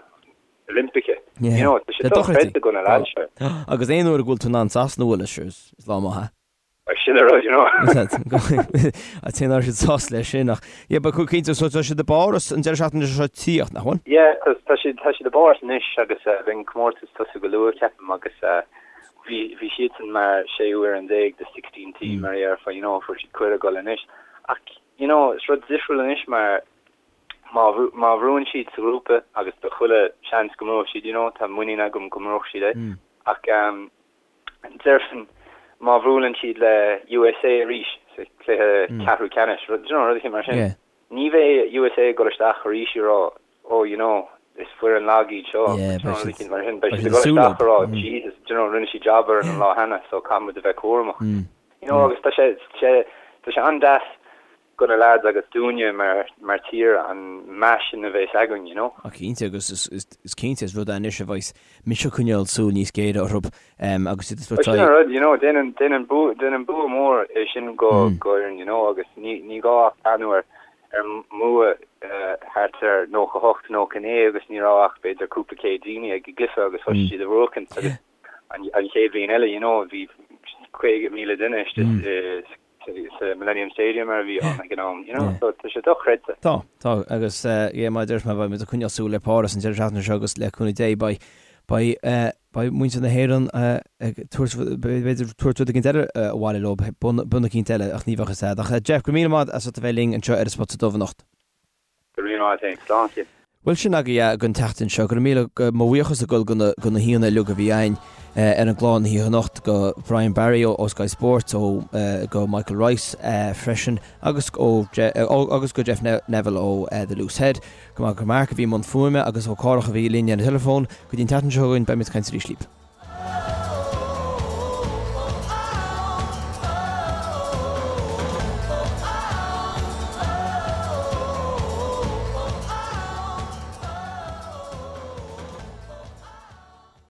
Oilimpeach, you know, tá sé dochreidte go na lads seo.
Agus aon uair a bhfuil tú in ann Sasana a bhualadh, sure, is lá maith é.
Sin an rud, you know.
An té nach raibh siad sásta leis sin ach yeah but cinnte so tá siad i bPáras an deireadh seachtaine seo tíocht, nach bhfuil?
Yeah, tá tá siad tá siad i bPáras anois agus beidh an comórtas tosú go luath ceapaim agus bhí bhí siadsan mar séú fhoireann déag the 16 team mar a déarfá you know fuair siad cuireadh dul anois ach you know is rud difriúil anois mar. Má má bhuann siad sa ghrúpa, agus tá chuile seans go mbuafaidh siad, you know, tá muinín agam go mbuafaidh siad é, ach déarfainn má bhuaileann siad le USA arís sa chluiche ceathrú ceannais, rud, you know, rud eicínt mar sin, ní bheidh USA ag dul isteach arís ag rá, oh, you know, is foireann lag iad seo, you know, rud eicínt mar sin, beidh siad ag dul isteach ag rá, Jesus, you know, rinne siad jab orainn an lá cheana, so caithfidh muid a bheith cúramach. You know, agus tá sé, tá sé an-deas do na lads agus dúinne mar mar tír an meas sin a bheas againn, you know.
Ah cinnte, agus is cinnte is rud é anois a bheas mise ag coinneáil súil níos géire orthu agus iad ag
tabhairt Sin an rud, you know, déanann déanann bua déanann bua mór é sin go go fhoireann, you know, agus ní ní gá ach breathnú ar ar mbua thart ar 98, 99 agus ní raibh ach b'fhéidir cúpla céad daoine ag an gcluiche agus thosaigh siad a bhuachaint agus an an chéad bhliain eile, you know, bhí 50,000 duine istigh sa Millennium Stadium mar a bhí ann ag an am, you know, so tá sé dochreidte.
Tá, tá, agus yeah, mar a deir mé, beidh muid ag coinneáil súil ar Páras an deireadh seachtaine seo agus le cúnamh Dé beidh, beidh, beidh muintir na hÉireann ag tabhairt, b'fhéidir tabhairt rud éigin eile abhaile leo, bonn eicínt eile ach ní bheadh fhios a'd. Ach Jeff, go raibh míle maith as ucht a bheith linn anseo ar an Spota Dubh anocht.
Go raibh míle maith agat féin. Slán
Cian. Bhuel sin agaibh é don tseachtain seo. Go raibh míle, mo bhuíochas ag dul go na, go na haíonna uilig a bhí againn ar an gclár na hoíche anocht, go Brian Barry ó Sky Sports, ó go Michael Rice freisin agus ó agus go Jeff Neville ó The Loose Head. Go maith go Mark a bhí i mbun fuaime agus ó Cárthach a bhí linn ar an teileafón. Go dtí an tseachtain seo chugainn beimid ag caint arís libh.